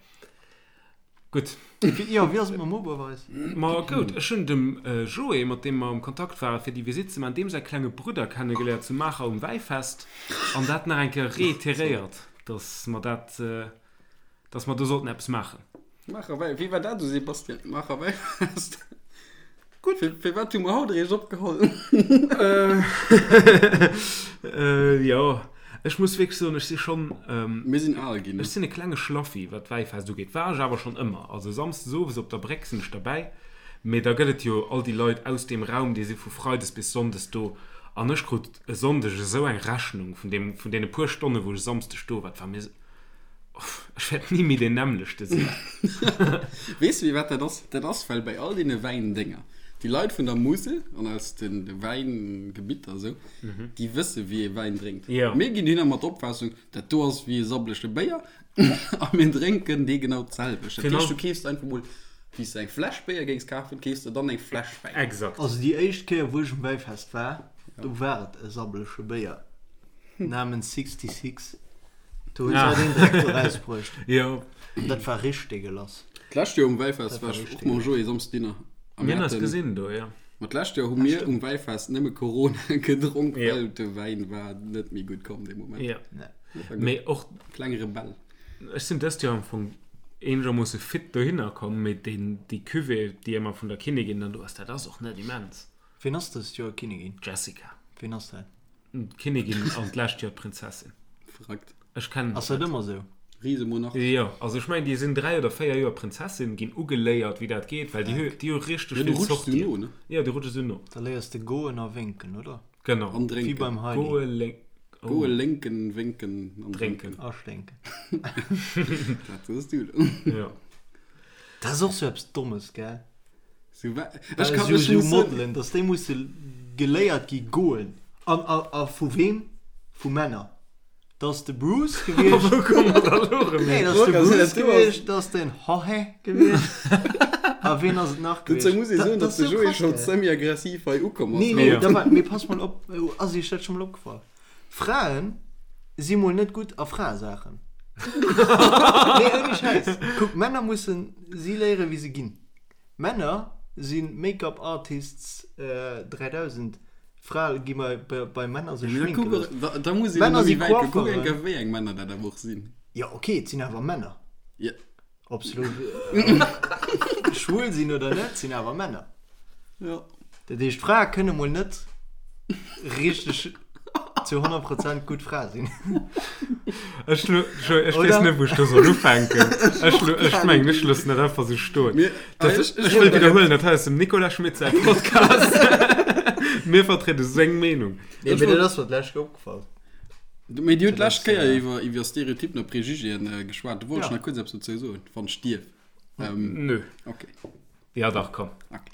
B: Gutt.
C: Jo, wéi ass et mam Oberweis?
B: Ma goud, ech hunn dem Joé, mat deem mer am Kontakt waren, fir déi Visitt ze maachen, deem säi klenge Brudder kennegeléiert zu Maacher um Wäifest an dat nach eng Kéier reiteréiert, dass mer dat, dass mer do sollten eppes maachen.
A: Maacher Wäi, wéi war dat esou, Sebastian? Maacher Wäifest? Gutt. Firwat hu mer haut eréischt opgeholl?
B: Jo, ech muss wierklech soen, ech si schonn.
A: Mir sinn al ginn.
B: Ech sinn e klenge Schlaffi, wat d'Wäifest ugeet. War ech awer schonn ëmmer. Also samsdes owes op der Bréck sinn ech derbäi. Mee da gëtt et jo all déi Leit aus deem Raum, déi si vu freides bis sonndes do. An ech krut e Sonndeg esou eng Rechnung vun deem, vun deene puer Stonne wou ech e Samsdeg do war. Et war mir. Ech wäert
A: ni
B: méi deen nämmlechte sinn.
A: Weess de firwat dat ass? Dat ass well bei all deene Wäindénger déi Leit vun der Musel an aus de Wäingebitter esou, déi wësse wéi ee Wäin drénkt. Mir ginn hinner mat der Opfaassung, dat do ass wéi e sabblege Béier a mir drénken dee genau d'selwecht. Dat heescht, du keefs einfach mol, wéi s de eng Fläsch Béier géings kafen, keefs de dann eng Fläsch
C: Wäin. Exakt. Also déi éischt Kéier wou ech um Wäifest war, do war et e sabbelege Béier namens 66. Do hunn se den Dreck do rausbruecht.
B: Jo.
C: Dat war richteg dégueulasse.
A: D'lescht Joer um Wäifest war ech och mam Joé Samsdes Dinner.
B: A mir hunn eis gesinn do, jo.
A: Ma d'lescht Joer hu mir um Wäifest nëmme Corona gedronk, well de Wäin war net méi gutt komm dee Moment.
B: Jo. Mee och.
A: Kleng Rebell.
B: Ech sinn dëst Joer am Fong eenegermoosse fit dohinner komm, mee deen, déi Cuvée, déi ëmmer vun der Kinnigin dann do ass, dat ass och net immens.
C: Ween ass dëst Joer Kinnigin?
B: D'Jessica.
C: Ween ass dat?
B: D'Kinnigin an d'lescht Joer d'Prinzessin.
A: Verrückt.
B: Ech kennen
C: Ass dat ëmmer sou?
A: Risemonarch.
B: Jo, also ech mengen déi sinn 3 oder 4 Joer Prinzessin, ginn ugeléiert wéi dat geet, well déi hu déi hu richteg
A: Ja, du
B: vill
A: rutschs du
B: Sortien.
A: no, ne?
B: Jo, du rutschs esou no.
C: Da léiers de goen a wénken, oder?
B: Genau.
A: An
C: Wéi
A: drénken.
C: beim Heidi.
B: Goe, lénk, oh.
A: Goe, lénken, wénken
B: an drénken.
A: drénken.
C: A sténken.
A: Dat soos du elo.
B: Jo.
C: Dat ass och sou eppes Dommes, gell?
A: So, wa,
C: ech kann, ech muss Modelen, dass déi musse geléiert gi goen. An, a, a vu wem? Vu Männer. Dat ass de Bruce gewiescht.
B: Wou komme mer da lo erëm
C: Nee,
B: hin?
C: dat ass de Bruce gewiescht, dat ass den Jorge gewiescht. A ween ass et nach
A: gewiescht? Dozou muss ee soen,
C: Dat
A: datt
C: ass
A: de
C: sou
A: Joé
C: krass,
A: scho
C: gell?
A: semi-aggressiv hei ukomm ass.
C: Nee, nee,
B: Ja.
C: da war, mee pass mol op, ass iech dat scho mol opgefall? Fraen si mol net gutt a Fraesaachen. Nee, ouni Schäiss. Kuck, Männer mussen si léieren, wéi se ginn. Männer si Make-up Artists 3000, Frae gi bei Männer sech schminke loossen.
A: Da muss een
C: Männer
A: ëmmer
C: si
A: méi wäit kucken,
C: Coiffeuren.
A: kuck eng Kéier wéi eng Männer dat awer och sinn.
C: Jo ok, et sinn awer Männer.
A: Jo.
C: Ob se elo schwul sinn oder net, sinn awer Männer.
A: Jo.
C: Dat heescht, Frae kënne mol net richteg zu 100 Prozent gutt Fra sinn.
B: Ech, ech weess net, wou ech do soll ufänken. Ech, ech mengen, ech loossen dat einfach sou stoen.
A: Mir,
B: Dat,
A: ech,
B: ech wëll widderhuelen, dat hei ass dem Nicolas Schmit säi Podcast. Mir vertriede seng Meenung.
C: Nee, mee dat ass mer d'lescht Kéier opgefall.
A: Mee Dir hutt d'lescht Kéier iwwer, iwwer Stereotypen a Prejugéen geschwat. Do wollt ech
C: Ja.
A: nach kuerz eppes dozou soen, wann ech dierf.
B: Nö.
A: Okay.
B: Ja dach, komm.
A: Okay.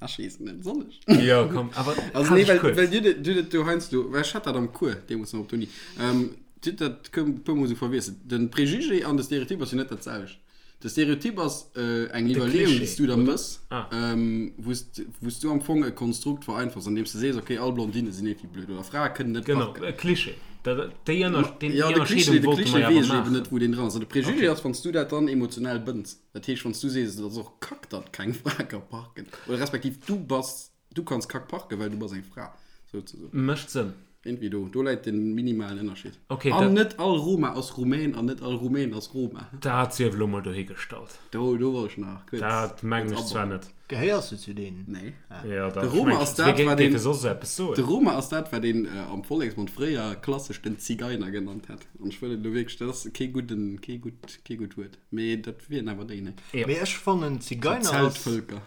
A: Ech weess net, soll ech?
B: Ja, komm, awer
A: Also nee, well, well dir, dir dat do heiansdo, well ech hat dat am Cours deemools nach op der Uni, ähm, dir hutt dat e puer Mol esou verwiesselt. Den Préjugé an de Stereotyp ass jo net dat selwecht. De Stereotyp ass äh, eng Iwwerleeung, déi s du der mëss,
B: Ah.
A: ähm, wou s wou s du am Fong e Konstrukt vereinfachs, andeem s du sees, okay, all Blondinne sinn iergendwéi blöd oder Frae kënnen net
B: Genau,
A: parken.
B: e Klischee. Dat, déi Ënner, deen,
A: Ja,
B: déi
A: de Klischee,
B: Ënnerscheedung
A: de
B: wollte
A: Klischee
B: mer jo
A: weess
B: awer
A: ech eben net,
B: maachen.
A: wou deen dran ass. An de Préjugé
B: Okay.
A: ass, wann s du dat dann emotionell bënns. Dat heescht, wann s du sees, et ass och kack, datt keng Fra ka parken, oder respektiv du bass, du kanns kack parken, well du bass eng Fra, souzesoen.
B: Mécht Sënn.
A: Irgendwie do, do läit de minimalen Ënnerscheed.
B: Okay,
A: An
B: dat.
A: net all Roma ass Rumän an net all Rumän ass Roma.
B: Dat sief elo mol dohigestallt.
A: Do, do wollt ech nach kuerz,
B: Dat mengen
A: kuerz
B: ech zwar
A: abauen.
B: net.
C: Gehéiers du zu deenen?
A: Nee.
B: Ja,
A: De
B: dat
A: Roma
B: mengen
A: ass
B: ech.
A: dat,
B: Wie
A: wat
B: géif
A: een,
B: soss eppes
A: de
B: soen?
A: Roma ass dat, wat een am Volleksmond fréier klassesch den Zigeiner genannt hätt. An ech wëll et elo wierklech, dat ass kee gudden, kee gutt, kee gutt Wuert. Mee dat wieren awer déi, ne?
B: Ja.
C: Mee ech fannen Zigeiner ass
A: Zeltvölker.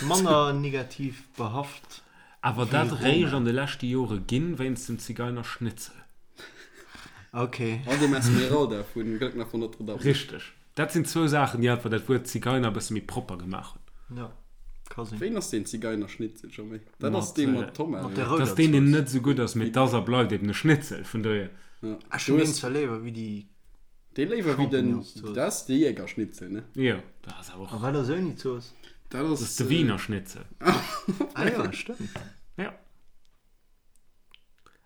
C: manner negativ behaft
B: Awer
C: wéi
B: dat réischt
C: Roma.
B: an de leschte Jore ginn, wéinst dem Zigeinerschnitzel.
C: Ok.
A: An dem Esmeralda vun Glöckner von Notre Dame.
B: Richteg. Dat sinn zwou Saachen, déi einfach dat Wuert Zigeiner e bësse méi propper gemaach hunn.
C: Jo, ka sinn.
A: Wéin ass deen Zigeinerschnitzel scho méi? Dat ass
B: Mat,
A: dee mat Tomat,
C: Mat der
A: oder?
B: Dat ass
C: rouder
B: deen, deen
C: Zooss.
B: net esou gutt ass, mee et ass a bleift eben e Schnitzel, vun dohier.
A: Ja.
C: Ech
A: Du
C: hunn deen
A: hues
C: zwar léiwer wéi déi
A: dee léiwer wéi den,
C: Champignonszooss.
A: dat ass de Jägerschnitzel, ne?
B: Jo, dat ass awer
C: A
B: och.
C: wat ass ouni Zooss?
A: Dat
B: Dat ass
A: ass,
B: de Wiener Schnitzel.
C: Ah jo, stëmmt.
B: Ja.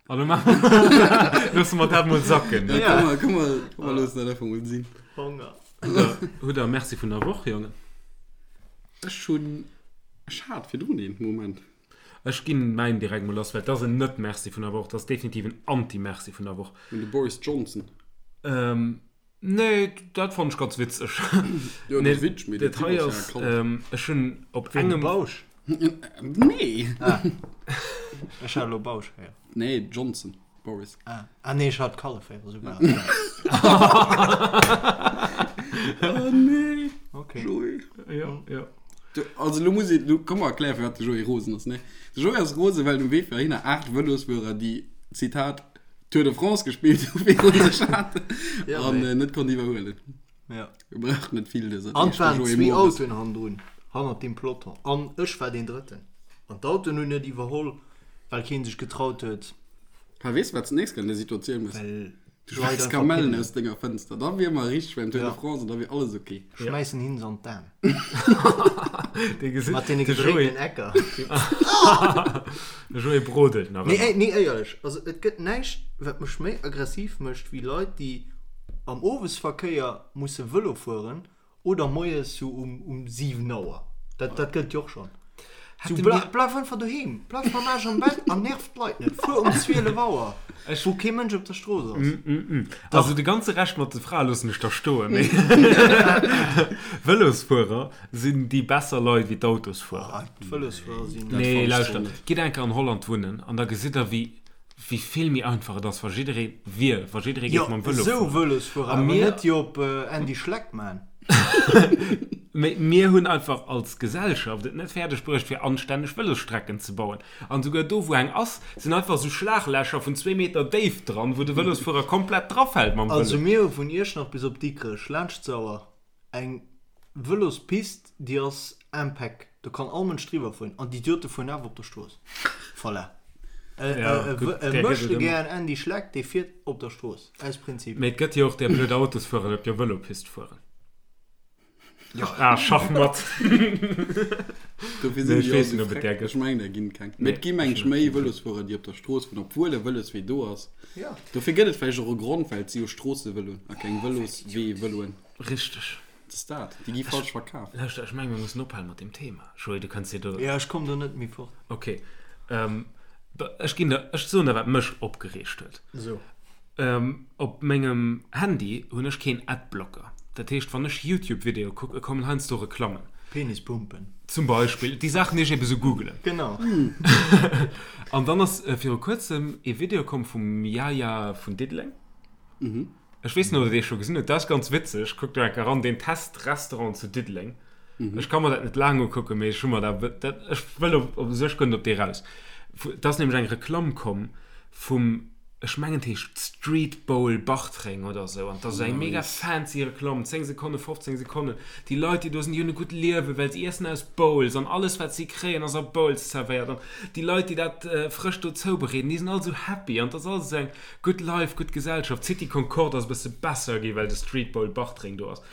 B: An lo maache mer, loosse mer dat mol sacken.
A: Ja,
C: Ja.
A: komm mal, komm mal, komm mal, loossen dat einfach mol sinn.
C: Honger.
B: Hutt der, hutt der Merci vun der Woch, Jongen?
A: Ech hunn, ech hat virdrun een, Moment.
B: Ech ginn mäin direkt mol lass, well et ass en Net-Merci vun der Woch, et ass definitiv en Anti-Merci vun der Woch.
A: Un de Boris Johnson.
B: Ähm, nee, dat fannt ech ganz witzeg.
A: Jo, dat
B: Nee,
A: ass witzeg, mee den
B: dat
A: Typ
B: hei
A: ass ja
B: ass,
A: krank.
B: ähm, ech hunn op
C: Ween, de
B: engem.
C: Bausch?
A: Nee.
C: Ah. Ech hat elo Bausch héieren.
A: Nee, Johnson Boris.
C: Ah, ah nee, ech hat Kallef héieren, esou war et.
A: Oh nee.
C: Okay.
A: Joé.
B: Ja, ja.
A: Du, also lo muss ich, lo komm mal erklären, firwat de Joé rosen ass, ne? De Joé ass rosen, well um Wee fir heihinner 8 Vëlosfuerer, déi, Zitat, Tour de France gespillt hu viru sech haten
C: Ja,
A: an
C: nee.
A: äh, net konnt iwwerhuelen.
C: Ja.
A: Wir brauchen net vill dëser
C: An
A: Deeg,
C: et waren
A: de Joé
C: zwee
A: Mores.
C: Autoen hannendrun, hannert deem Peloton. An ech war deen Drëtten. An d'Autoen hunn net iwwerholl, well kee sech getraut huet.
A: Ha, weess du, wat s de nächst Kéier an där Situatioun muss?
C: Well
A: Du
C: d'Leit
A: schmeiss
C: einfach
A: Kamellen
C: pinnen.
A: aus denger Fënster, da wier mer richteg beim Tour de
C: Ja.
A: France an da wier alles ok.
C: Schmäissen hin se an d'Aen.
B: Dee gesit,
C: Mat deene
B: de Joé,
C: gedréiten Ecker.
B: de Joé brodelt nach
C: Nee,
B: ëmmer.
C: ey, nee, éierlech, also et gëtt näischt, wat mech méi aggressiv mécht, wéi Leit, déi am Owesverkéier musse Vëlo fueren Oder moies sou um um 7 Auer. Dat dat gëllt jo och schonn. Sou
B: Hätte
C: bla
B: mir.
C: bleif einfach doheem, bleif mam Aarsch am Bett an nerv d'Leit net. Fuer um 12 Auer,
B: Ech.
C: wou kee Mënsch op der Strooss ass.
B: Also
C: Dach.
B: de ganze Rescht mat de Frae loossen ech da stoen, mee Vëlosfuerer sinn déi besser Leit wéi d'Autosfuerer.
C: Ah, d'Vëlosfuerer sinn.
A: Dat
B: Nee,
A: fannen ech
B: lauschter,
A: zwar net.
B: gitt enker an Holland wunnen an da gesitt der wéi wéi vill méi einfach et ass, wa jidderee wier, wa jidderee
C: Jo,
B: géif mam Vëlo
C: esou
B: fueren.
C: Vëlosfuerer,
B: A
C: awer
B: mir,
C: net déi op Andy Schleck man.
B: mee mir hunn einfach als Gesellschaft et net fäerdeg bruecht, fir anstänneg Vëlosstrecken ze bauen. An souguer do, wou eng ass, sinn einfach esou Schlaglächer vun zwee Meter Déift dran, wou de Vëlosfuerer komplett drafält mam
C: Also
B: Vëlo.
C: mir hu vun Iechternach bis op Dikrech laanscht d'Sauer Eng Vëlospist, déi ass impeck, do kann all Mënsch driwwer fueren an d'Idiote fueren awer op der Strooss. Voilà. E Möchtegern Andy Schleck, dee fiert op der Strooss, aus Prinzip.
B: Mee et gëtt jo och där blöd Autosfuerer, déi op der Vëlopist fueren. Ah, Schachmatt.
A: Dofir sinn déi och esou freck. Ech mengen, der ginn keng. Mee et gi meng ech méi Vëlosfuerer, déi op der Strooss fueren, obwuel e Vëloswee do ass. Dofir gëtt et vläicht och e Grond, well et si jo Stroossevëloen a keng Vëlosweevëloen.
B: Richteg.
A: Dat ass dat. Déi gi falsch verkaf.
B: Lauschter, ech menge mir mussen ophalen mat deem Thema. Joé, du kënns dir do.
C: Jo, ech komm do net méi fort.
B: Ok. Ech ginn der, ech soen der, wat mech opgereegt huet.
C: So.
B: Op mengem Handy hunn ech keen Adblocker. Dat heescht, wann ech YouTube-Videoe kucken, kommen heiansdo Reklammen.
C: Penispumpen.
B: Zum Beispill. Déi Saachen, déi ech ebe sou googelen.
C: Genau.
B: An dann ass viru kuerzem ee Video komm vum Yaya vun Diddeleng. Ech weess net, ob der dee scho gesinn hutt. Dat ass ganz witzeg. Kuckt do enker eran, deen test Restaurant zu Diddeleng. Ech ka mer dat net laang ukucken, mee ech hu mer dat, dat, ech wëll op, op sech guer net op dee raus. Et ass nämlech eng Reklamm komm vum, ech mengen et heescht Street Bowl Bartreng oder esou. An et ass esou eng mega fancy Reklamm, 10 Sekonnen, 15 Sekonnen. Déi Leit, déi do sinn, déi hunn e gutt Liewen, well se iessen aus Bowls an alles, wat si kréien, ass a Bowls zerwéiert. An déi Leit, déi dat frësch do zoubereeden, déi sinn all esou happy. An et ass alles esou eng Gutt Life, gutt Gesellschaft. D'City Concorde ass e bësse besser gi well de Street Bowl Bartreng do ass.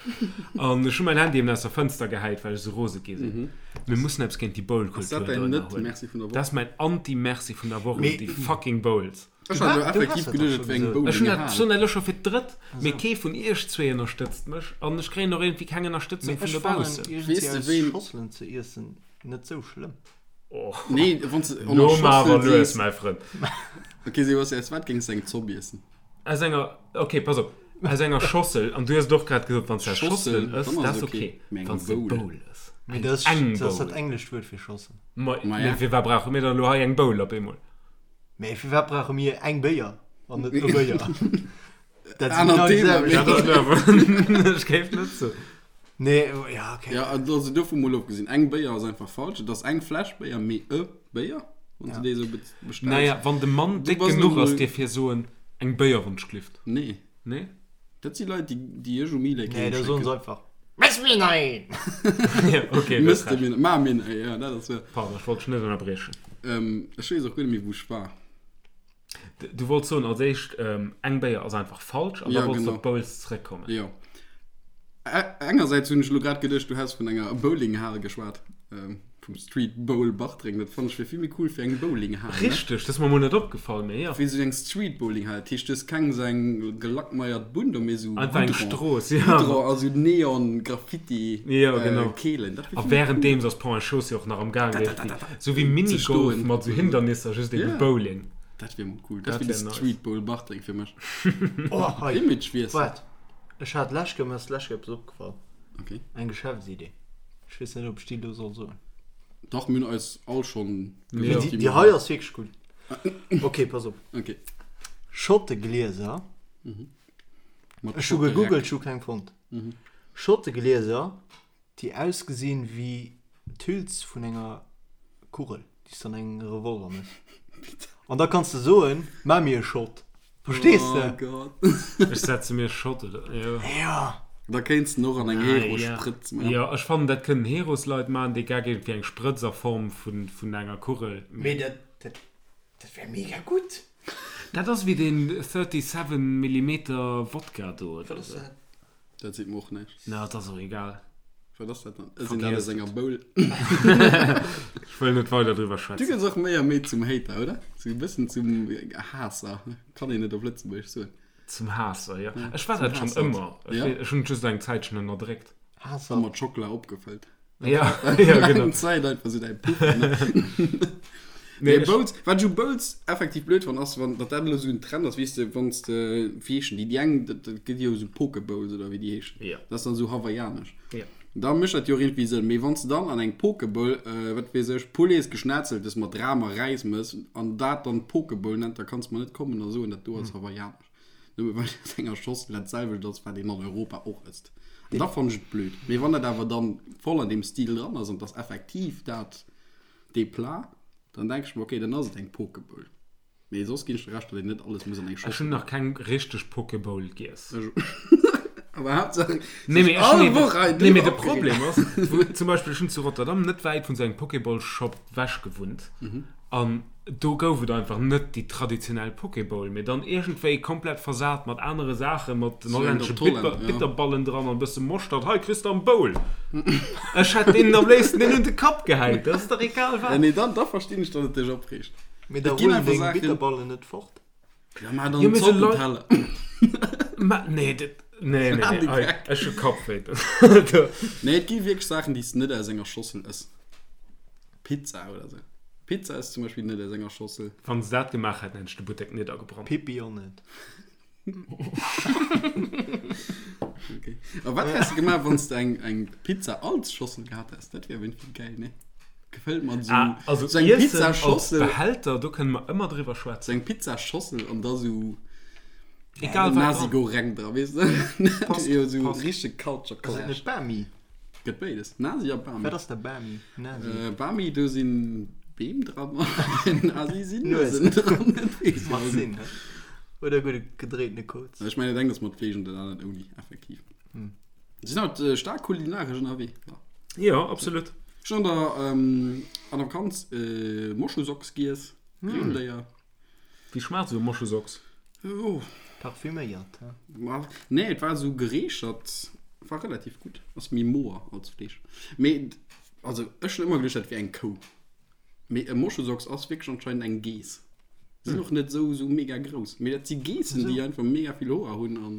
B: An ech hu mäin Handy eben aus der Fënster gehäit, well ech esou rose gi sinn. Mir mussen eppes géint déi
A: Ass
B: Bowl-Kultur
A: dat
B: do
A: däin
B: ënnerhuelen.
A: Net-Merci vun der
B: Dat
A: Woch?
B: ass mäin Anti-Merci vun der Woch un
C: Mee
B: déi fucking Bowls.
A: Ech
C: du
A: hat elo
C: ha du
A: effektiv
C: has dat
A: geduecht,
C: dach
A: et
C: scho
A: wär eng
C: gesot.
B: Ech hunn dat,
A: Bowlinghal.
B: soen dat elo scho fir d'drëtt, mee
C: Esou.
B: kee vun iech zwee ënnerstëtzt mech an ech kréien och iergendwéi keng Ënnerstëtzung
C: Mee
B: vun
C: ech fannen
B: dobaussen.
C: iergendwéi
A: Weess de
C: aus
A: ween.
C: Schosselen ze iessen net sou schlëmm.
B: Oh.
A: Nee, wann s de an
B: Lo
A: der
B: mar awer
A: Schossel
B: lues,
A: sees.
B: mäi Frënd.
A: Ok, Sebastian, aus wat géings de eng Zopp iessen?
B: Aus enger, ok, pass op, aus enger Schossel, an du hues et och grad gesot, wann s de aus
A: Schossel,
B: Schosselen ëss,
A: dann
B: dat
A: ass
B: ass
A: ok.
B: ok.
A: Mee eng
B: Wann s de
A: Bowl.
B: Bowl ëss,
C: Mee
B: eng
C: dat ass,
B: eng
C: dat ass dat
B: Bowl.
C: englescht Wuert fir Schossel.
B: Ma,
A: Ma
B: mee
A: ja.
B: firwat brauche mir dann elo hei eng Bowl op eemol?
C: Mee firwat brauche mir eng Béier an net e Béier? Dat si
A: Anert
C: genau déi
A: Thema,
C: selwecht.
B: Dat ass elo awer, ech géif net soen.
C: Nee, ja, okay.
A: Ja, also dovun mol ofgesinn, eng Béier ass einfach falsch. Et ass eng Fläsch Béier, mee e Béier, wann s
C: Ja.
A: de déi esou be bestells.
B: Naja, wann de Mann
A: Du
B: déck
A: bass
B: genuch
A: elo
B: ass,
A: mol.
B: dierf hie soen, eng Béier wann ech glift.
A: Nee.
B: Nee?
A: Dat si Leit, déi, déi ech um E-Lake
C: Nee, da soen se
A: heemschécken.
C: einfach, Mess mir nach een!
B: Ja, okay, du hues
A: Mëss de
B: Recht.
A: mir, ma mir nach een, ja, dat ass wahr.
B: Pardon, ech wollt dech net ënnerbriechen.
A: Ähm, ech weess och guer net méi, wou ech war.
B: Du wollts soen als éischt, eng Béier ass einfach falsch an da
A: Ja,
B: wollts du
A: genau.
B: op d'Bowls zeréckkommen.
A: Jo. Engersäits hunn ech elo grad geduecht, du häss vun enger Bowlinghal geschwat, vum Street Bowl Bartreng. Dat fannen ech wier vill méi cool fir eng Bowlinghal, ne?
B: Richteg, dat ass mer mol net opgefall, mee jo.
A: Wéi esou eng Street Bowlinghal. Dat heescht, du hues keng esou eng gelackmeiert Bunn do, mee esou
B: Einfach eng
A: Goudron.
B: Strooss, ja.
A: Goudron a sou Neon Graffiti
B: Jo, genau.
A: Keelen. Dat wier
B: A
A: vill méi cool.
B: wärenddeems ass Pont et Chaussée och nach am Gaang, esou wéi
A: Ze
B: Minigolf
A: stoen.
B: mat esou Hindernisser, just ebe
A: Ja.
B: Bowling.
A: Dat wier mol cool. Dat
B: Dat
A: wier de
B: wär nice.
A: Street Bowl Bartreng fir mech.
C: Oh, hei.
A: Imagewiessel.
C: Waart, ech hat lech Kéier, mir ass lech Kéier eppes opgefall.
A: Okay.
C: Eng Geschäftsidee. Ech weess net, ob ech déi elo soll soen.
A: Dach, mir hunn eis all schonn
C: Mee déi, déi hei ass wierklech gutt. Ok, pass op.
A: Ok.
C: Schotteglieser.
A: Mat
C: Ech hu
A: Schottereck.
C: gegoogelt, ech hu keng fonnt. Schotteglieser, déi ausgesinn wéi d'Hüls vun enger Kugel, déi s de an engem Revolver méchs. An da kanns de soen, Maach mir e Schott. Verstees de?
A: Oh Gott.
B: Ech setze mir Schott oder jo.
C: Ja.
A: Da kéints den och an eng
B: Ah,
A: Hero-Sprëtz
B: ja.
A: maachen.
B: Jo, ech fannen dat kënnen Herosleit maachen, dee Gag iergendwéi eng Sprëtz a Form vun, vun enger Kugel.
C: Mee dat, dat, dat wär mega gutt.
B: Dat ass wéi deen 37 Millimeter Wodka do
C: Wat
B: oder
C: ass
B: sou.
C: dat?
A: Dat seet mer och näischt.
B: Na, et ass och egal.
A: Wat ass dat dann? Ech sinn dat aus
B: Vergiess
A: enger
B: et.
A: Bowl.
B: Ech wëll net weider driwwer
A: Du
B: schwätzen.
A: gëss och méi a méi zum Hater, oder? Sou e bëssen zum Haasser, kann een et op Lëtzebuergesch soen?
B: Zum Haasser, jo.
A: Ja,
B: Ech war
A: zum
B: dat schonn
A: Haassert.
B: ëmmer. Ech
A: Ja.
B: wee, ech hunn et just eng Zäitchen ënnerdréckt.
A: A
C: Haassert.
A: mat Schockela opgefëllt.
B: Ja, ja, genau.
A: Eng Zäit einfach sou däi Puffer, ne?
B: Nee,
A: Nee,
B: ech,
A: Bowls, wat ech u Bowls effektiv blöd fannen, ass, wann, datt dat elo esou en Trend ass, weess de, wann s de, wéi heeschen déi, déi eng, dat, dat gëtt jo esou Poke Bowls oder wéi déi heeschen,
B: Ja.
A: dat ass dann esou hawaiianesch.
B: Ja.
A: Da mécht dat jo och iergendwéi Sënn. Mee wann s de dann an eng Poke Bowl, wat weess ech, Poulets Geschnetzeltes mat Ram a Räis mëss an dat dann Poke Bowl nennt, da kanns de mer net kommen a soen, dat do ass hawaiianesch. Nëmme well aus enger Schossel dat selwecht ass, wat een an Europa och ësst. An da fannen ech et blöd. Mee wann dat awer dann voll an deem Stil dran ass an 't ass effektiv dat, dee Plat, dann denke ech mer, okay, dann ass et eng Poke Bowl. Mee soss ginn ech der Recht, datt een net alles muss an eng
B: ech hunn
A: Schossel
B: nach keng richteg Poke Bowl giess.
A: Awer Haaptsaach,
B: Nee, mee
A: sech
B: ech
A: all
B: hunn
A: Woch hei
B: eben, nee, mee
A: driwwer
B: de
A: opgeregt.
B: Problem ass, wou, zum Beispill, ech hunn zu Rotterdam net wäit vun esou engem Poke Bowl Shop wech gewunnt an do gouf et einfach net déi traditionell Poke Bowl, mee dann iergendwéi komplett versat mat anere Saachen, mat den
A: So eng
B: hollännesche
A: op d'Holländer,
B: Bitter,
A: ja.
B: Bitterballen dran an e bësse Moschtert. Hei kriss de am Bowl. Ech hätt deenen am léifsten deen un de Kapp gehäit, dat ass dach egal
A: Ja,
B: wat.
A: nee, dann, da verstinn ech, datt et dech opreegt.
C: Mee da
A: Et ginn
C: rullen
A: einfach
C: deng
A: Saachen.
C: Bitterballen net fort.
A: Ja, ma dann
B: Jo, mee se Leit.
A: Zoppenteller.
B: Ma nee, dat, nee, nee,
A: An
B: nee,
A: de
B: ei,
A: Geck.
B: ech hu Kappwéi. Do.
A: Nee, et gi wierklech Saachen, déi s de net aus enger Schossel ëss. Pizza oder sou. Pizza ass zum Beispill net aus enger Schossel.
B: Wann se dat gemaach hätten, hätt ech de Buttek niddergebrannt.
C: Pippi och net.
A: Okay. A wat häss de gemaach, wann s de eng, eng Pizza als Schossel gehat häss? Dat wier iergendwéi geil, ne? Gefëllt mat sou,
B: Ah, also
A: sou eng
B: Iessen als
A: Pizzaschossel.
B: Behälter, do kënne mer ëmmer driwwer
A: Sou
B: schwätzen.
A: eng Pizzaschossel an da sou
B: Egal wat
A: Nasi
B: dran.
A: Goreng dra, weess de? Dat
B: Passt,
A: wier jo sou
B: passt.
A: richteg Culture
C: Ass et
A: Clash.
C: net Bami?
A: Gëtt béides, Nasi a Bami.
C: Wat ass da Bami? Nasi?
A: Äh, Bami, do sinn Beem dran an Nasi sinn
C: Nuesen.
A: Nuesen dran. Dat weess ich
C: Macht
A: auch
C: Sinn,
A: net.
C: ne? Oder gudde gedréitene Koz.
A: Ech mengen, et engt ass mat Fleesch an dat anert ouni, effektiv.
C: Hm.
A: Si sinn haut äh, staark kulinaresch ënnerwee. Ja.
B: Jo, absolut.
A: Ech hunn an der, ähm, an der Vakanz äh, Moschusocks giess,
C: Hm.
A: Rendéier.
B: Wéi schmaacht esou e Moschusocks?
A: Oh.
C: Parfüméiert, he?
A: Ma, nee, et war esou gereechert, war relativ gutt. Ass méi moer als Fleesch. Mee, also ech hunn ëmmer geduecht, dat wier eng Kou. Mee e Moschusocks ass wierklech anscheinend eng Geess. Sinn och net esou esou mega grouss. Mee dat si Geessen, déi einfach mega vill Hoer hunn an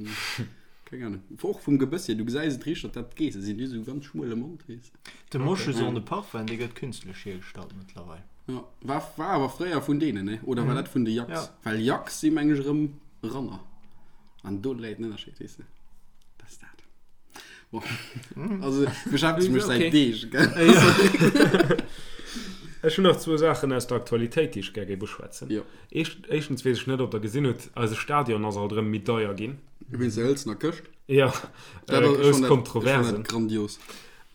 A: keng Ahnung. Och vum Gebëss hier, du gesäis et richteg, datt dat Geesse sinn. Déi hu sou ganz schmuele Mond, weess de.
C: De Moschus en de Parfum, dee gëtt künstlech hiergestallt mëttlerweil.
A: Ja, war, war awer fréier vun deenen, ne? Oder war dat vun de Yaks?
C: Ja.
A: Well Yaks si meng ech erëm Ranner. An do läit den Ënnerscheed, weess de. Dat ass dat. Bon. Also beschäftegt mech säit
B: Okay.
A: Deeg, gell?
B: Ech hunn nach zwou Saachen aus der Aktualitéit, déi ech gär géif uschwätzen.
A: Jo.
B: Éischt, éischtens weess ech net, ob Der gesinn hutt, eise Stadion ass alt erëm méi deier ginn.
A: Wéinst der hëlzener Këscht?
B: Ja,
A: Dat
B: äh,
A: ass, ech
B: grouss
A: fann dat, ech fann
B: Kontroversen.
A: dat grandios.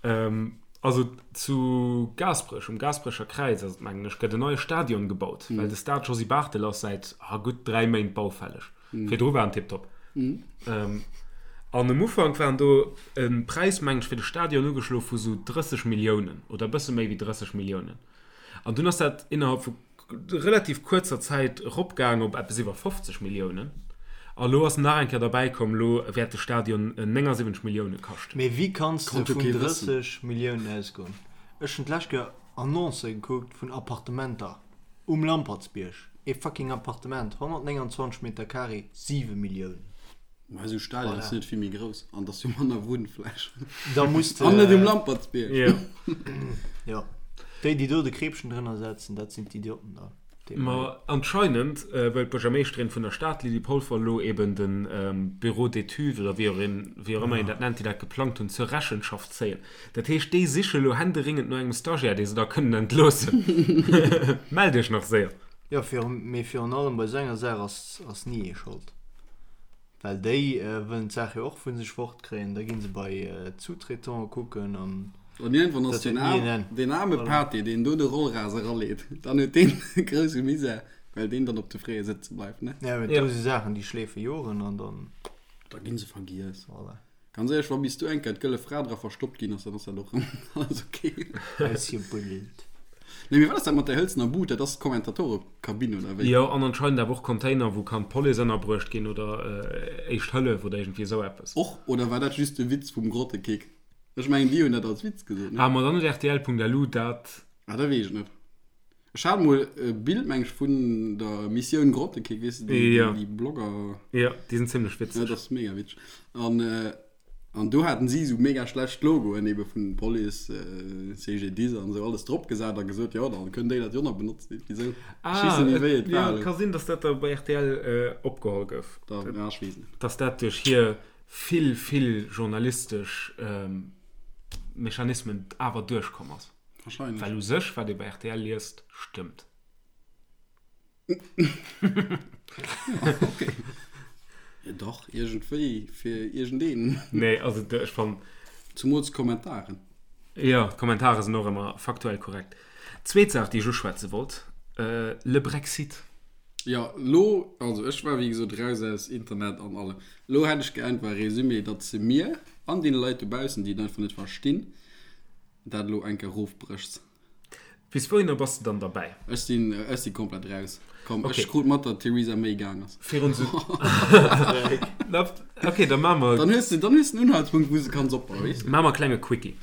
B: Ähm, also zu Gaasperech, um Gaasperecher Kräiz ass et, mengen ech, gëtt en neie Stadion gebaut, well de Stade Josy Barthel ass säit ah, gutt 3 Méint baufälleg. Virdru war en tiptop. Ähm, an um Ufank waren do e Präis, mengen ech, fir de Stadion ugeschlo vu sou 30 Milliounen oder e bësse méi wéi 30 Milliounen. An dunn ass dat innerhalb vu relativ kuerzer Zäit eropgaang op eppes iwwer 50 Milliounen. A lo ass nach eng Kéier derbäi komm, lo wäert de Stadion 79 Millioune kaschten.
C: Mee wéi kanns de
A: Konnt jo
C: vun
A: kee wëssen.
C: 30 Milliounen ausgoen? Ech hunn d'lescht Kéier Annoncë gekuckt vun Appartementer um Lampertsbierg. Ee fucking Appartement, 129 Meter carré, 7 Milliounen.
A: Ma esou Stadion ass
C: Voilà.
A: net vill méi grouss an et ass jo manner Wunnfläch.
C: Da muss de.
A: An net um Lampertsbierg.
B: Jo.
C: Jo. Déi, déi do de Kreepchen drënner setzen, dat sinn d'Idioten da.
B: Ma anscheinend wëll d'Buergermeeschterin vun der Stad, Lydie Polfer, elo eben de Bureau d'études, oder wéi och een, wéi och ëmmer een dat nennt, déi dat geplangt hunn, zur Rechenschaft zéien. Dat heescht, déi siche elo händeringend no engem Stagiaire, dee se da kënnen entloossen. Mellt iech nach séier!
C: Jo, mee virun allem bei esou enger Saach ass ni ee Schold. Well déi wëllen d'Saach jo och vu sech fort kréien, da gi se bei d'Sous-traitante kucken an
A: An iergendwann ass
C: dat huet ni en Enn.
A: deen aarme Voilà. Pati, deen do de Rollras eraleet, dann huet deen e grousse Misär, well deen dann op de Fréie sëtze bleift, ne?
C: Ja, mee
B: Ja.
C: do si Saachen, déi schleefe Joren an dann,
A: Da gi se vergiess.
C: voilà.
A: Ganz éierlech, wa bis du eng Kéier d'gëlle Fra dra verstoppt ginn ass, dann ass dat och erëm alles ok.
C: Ausgebuddelt.
A: Nee, mee wat ass dat mat där hëlzener Bud? Dat ass d'Kommentatorekabinn, oder wéi?
B: Jo, an anscheinend awer och Container, wou kann d'Police ënnerbruecht ginn oder Éischt Hëllef oder iergendwéi esou eppes.
A: Och, oder war dat just de Witz vum Grottekick? Ech mengen, déi hunn dat als Witz gesot, ne?
B: Ah, ma dann huet rtl.lu dat.
A: Ah, dat weess ech net. Ech hat mol e Bild, meng ech, vun der Missioun Grottekick, weess de, déi,
B: Ja.
A: déi Blogger.
B: Ja, déi sinn zimlech
A: Ja,
B: witzeg.
A: dat ass mega witzeg. An, an do haten si esou mega schlecht Logoen ebe vun Police, CGDIS an esou alles drop gesat a gesot, jo, da kënnt déi dat jo nach benotzen. Iergendwéi esou. Ech weess
B: Ah,
A: net méi, wéi
B: et,
A: et
B: ja,
A: war
B: et
A: elo.
B: ka sinn, dass dat da bei rtl opgeholl gouf.
A: Da, ja, ech weess net.
B: Dass dat duerch hir vill, vill journalistesch Mechanismen awer duerchkomm ass.
A: Wahrscheinlech.
B: Well u sech, wat ee bei rtl liest, stëmmt.
A: Okay. Ja, dach, iergendwéi, fir iergendeen.
B: Nee, also ech fannen.
A: Zumools d'Kommentaren.
B: Jo, d'Kommentare sinn och ëmmer faktuell korrekt. Zweet Saach, déi ech uschwätze wollt, Le Brexit.
A: Jo, lo, also ech war wéi gesot raus aus Internet an allem. Lo hätt ech gär einfach e Résumé, datt se mir an deene Leit dobaussen, déi et einfach net verstinn, dat elo eng Kéier erofbréchs.
B: Bis wouhinner bass de dann derbäi?
A: Ech sinn, ech si komplett raus. Komm,
B: Okay.
A: ech krut mat, datt d'Theresa May gaang ass.
B: Virun sou. Na, okay, da maache mer.
A: Dann hues de, dann hues de en Unhaltspunkt, wou s de kanns opbauen, weess de.
B: Maache mer e klenge Quickie.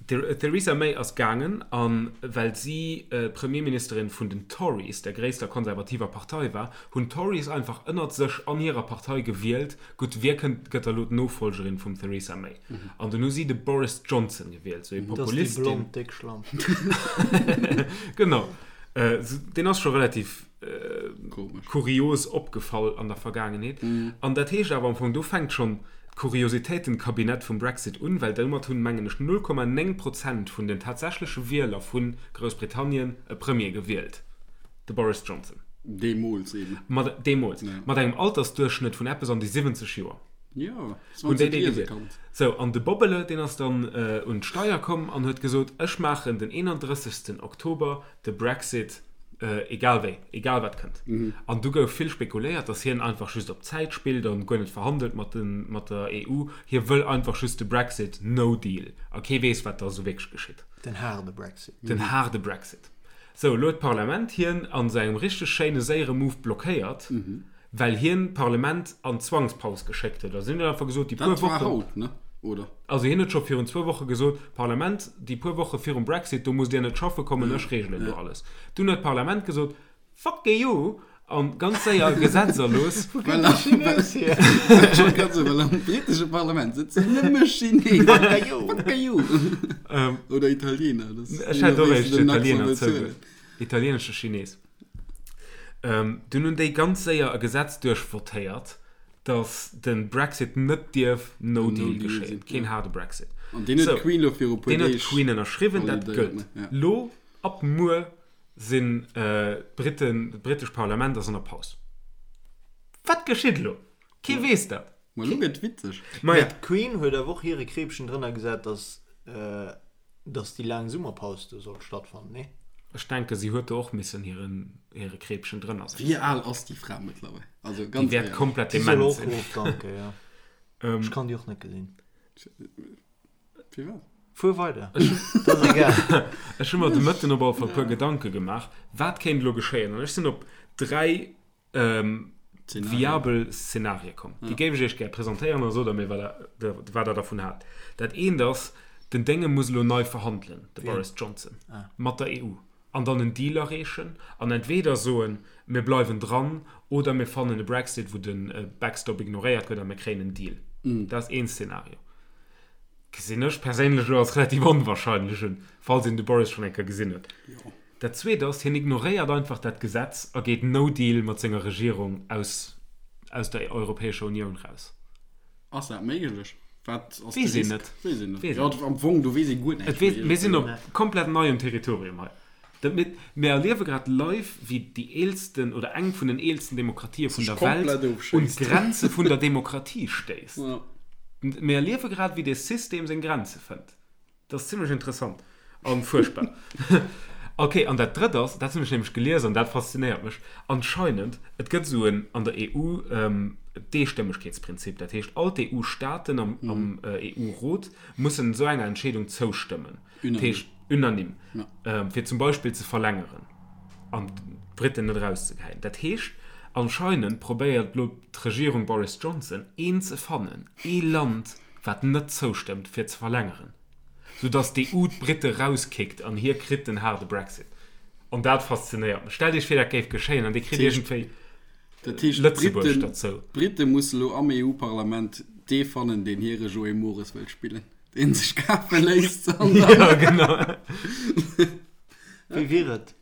B: D'Theresa May ass gaangen, a well si Premierministerin vun den Tories, der gréisster konservativer Partei war, hunn d'Tories einfach ënnert sech an hirer Partei gewielt, Gutt, wie kënnt, gëtt da lo d'Nofollgerin vum Theresa May? An dunn hu si de Boris Johnson gewielt, sou ee
C: Dat ass déi
B: Populist, deen.
C: blond déck Schlamp.
B: Genau. Deen ass scho relativ
A: Komesch.
B: kurios opgefall an der Vergaangenheet. An dat heescht awer am Fong, do fänkt schonn d'Kuriositéitenkabinett vum Brexit un, well domat hunn, mengen ech, 0,9 Prozent vun den tatsächleche Wieler vu Groussbritannien e Premier gewielt. De Boris Johnson.
A: Deemools eben.
B: Mat, deemools.
A: Ja.
B: Mat engem Altersduerchschnëtt vun eppes an déi 70 Joer.
A: Jo,
B: Hunn déi
A: 20
B: déi
A: liese
B: gewielt.
A: kanns.
B: Sou, an de Bobbele, deen ass dann un d'Steier komm an huet gesot, ech maachen den 31. Oktober de Brexit, egal wéi, egal wat kënnt. An du gouf vill spekuléiert, datt hien einfach just op Zäit spillt an guer net verhandelt mat den, mat der EU. Hie wëll einfach just de Brexit, no deal. A kee weess, wat da sou wierklech geschitt.
C: Den haarde Brexit.
B: Den haarde Brexit. Sou, elo huet d'Parlament hien an sou engem richteg schéine séiere Move blockéiert, well hien d'Parlament an d'Zwangspaus geschéckt huet. Also hien huet einfach gesot, déi puer
A: Dat war
B: Wochen,
A: haut, ne? Oder?
B: also hien huet scho virun zwou Woche gesot, Parlament, déi puer Woche virum Brexit, do musst Dir net schaffe kommen, ech reegelen do alles. Dunn huet d'Parlament gesot, Fuck EU! An ganz séier e Gesetz erlooss.
C: Wou kënnt de Chines hier?
A: Ech wollt grad soen, well am britesche Parlament sëtzen nëmme Chinesen.
C: Fuck you!
A: Fuck you! Oder Italiener. Das
B: Ech hätt och
A: wéi se
B: éischt
A: den Accent
B: Italiener
A: bezuelen.
B: zouge. Italienesche Chines. Dunn hunn déi ganz séier e Gesetz duerchvotéiert, datt de Brexit net dierf No Deal
A: No Deal
B: geschéien.
A: sinn,
B: Keen
A: ja.
B: haarde Brexit.
A: An deen huet
B: Sou,
A: d'Queen lo viru puer
B: deen huet
A: Deeg
B: d'Queen ënnerschriwwen, dat
A: validéiert,
B: gëllt.
A: ne? Ja.
B: Lo, ab muer, Sinn d'Briten, d'britescht Parlament ass an der Paus. Wat geschitt elo? Kee weess dat.
A: Ma elo gëtt witzeg.
B: Ma ja.
C: D'Queen huet awer och hire Kreepchen drënner gesat, dass dass déi laang Summerpaus do sollt stattfannen, nee?
B: Ech denke si huet do och missen hiren hire Kreepchen drënner setzen.
A: Wéi al ass déi Fra mëttlerweil? Also
B: Déi
A: ganz
B: wäert
A: éierlech.
B: komplett
C: Déi soll
B: dement
C: och
B: sinn.
C: ofdanken, jo. Ech kann déi och net gesinn.
A: Firwat?
C: Fuer weider, dat ass egal.
B: Ech hu mer de Mëtten op alle Fall e puer Gedanke gemaach, wat kéint elo geschéien. An ech sinn op 3 viabel Szenarie komm. Déi géif ech iech gär presentéieren a sot der mir, wat der, wat der dervun haalt. Dat eent ass, den Dénge muss elo nei verhandelen, de Boris Johnson, mat der EU an dann en Deal erreechen an entweder soen, mir bleiwen dran oder mir fannen e Brexit, wou de Backstop ignoréiert gëtt a mir kréien en Deal. Dat ass een Szenario. Gesinn ech perséinlech elo als relativ onwahrscheinlech un, falls een de Boris schonn eng Kéier gesinn huet. Dat Zweet ass, hien ignoréiert einfach dat Gesetz a geet no deal mat senger Regierung aus aus der Europäescher Unioun raus.
A: Ass dat méiglech?
B: Wat ass de Weess een Risk? net.
A: Weess een net. Weess een Ja, am Fong, do weess ee guer
B: näischt méi. Mir sinn op komplett neiem Territorium hei. Dat mir, mir erliewe grad live, wéi déi eelsten oder eng vun den eelsten Demokratië vun der Welt un d'Grenze vun der Demokratie stéisst. Ja. Mir erliewe grad, wéi dee System seng Grenze fënnt. Dat ass zimlech interessant an fuerchtbar. Ok, an dat drëtt ass, dat hunn ech nämlech gelies an dat faszinéiert mech, anscheinend, et gëtt esou en an der EU d'Eestëmmegkeetsprinzip, dat heescht all d'EU-Staaten am am EU-Rot mussen esou enger Entscheedung zoustëmmen, dat heescht unanime, fir zum Beispill ze verlängeren an d'Briten net erauszegeheien. Dat heescht, anscheinend probéiert elo d'Regierung Boris Johnson een ze fannen, ee Land, wat net zoustëmmt fir ze verlängeren, sou dass d'EU d'Britte rauskickt an hie kritt den haarde Brexit. An dat faszinéiert mech. Stellt iech vir dat géif geschéien an dir kritt iergendwéi
A: Dat heescht, Lëtzebuerg derzou. D'Britte musse lo am EU-Parlament dee fannen, deen hire Joé Mores wëllt spillen, deen sech kafe léisst
B: an dann. Jo, genau.
C: Wéi wier et?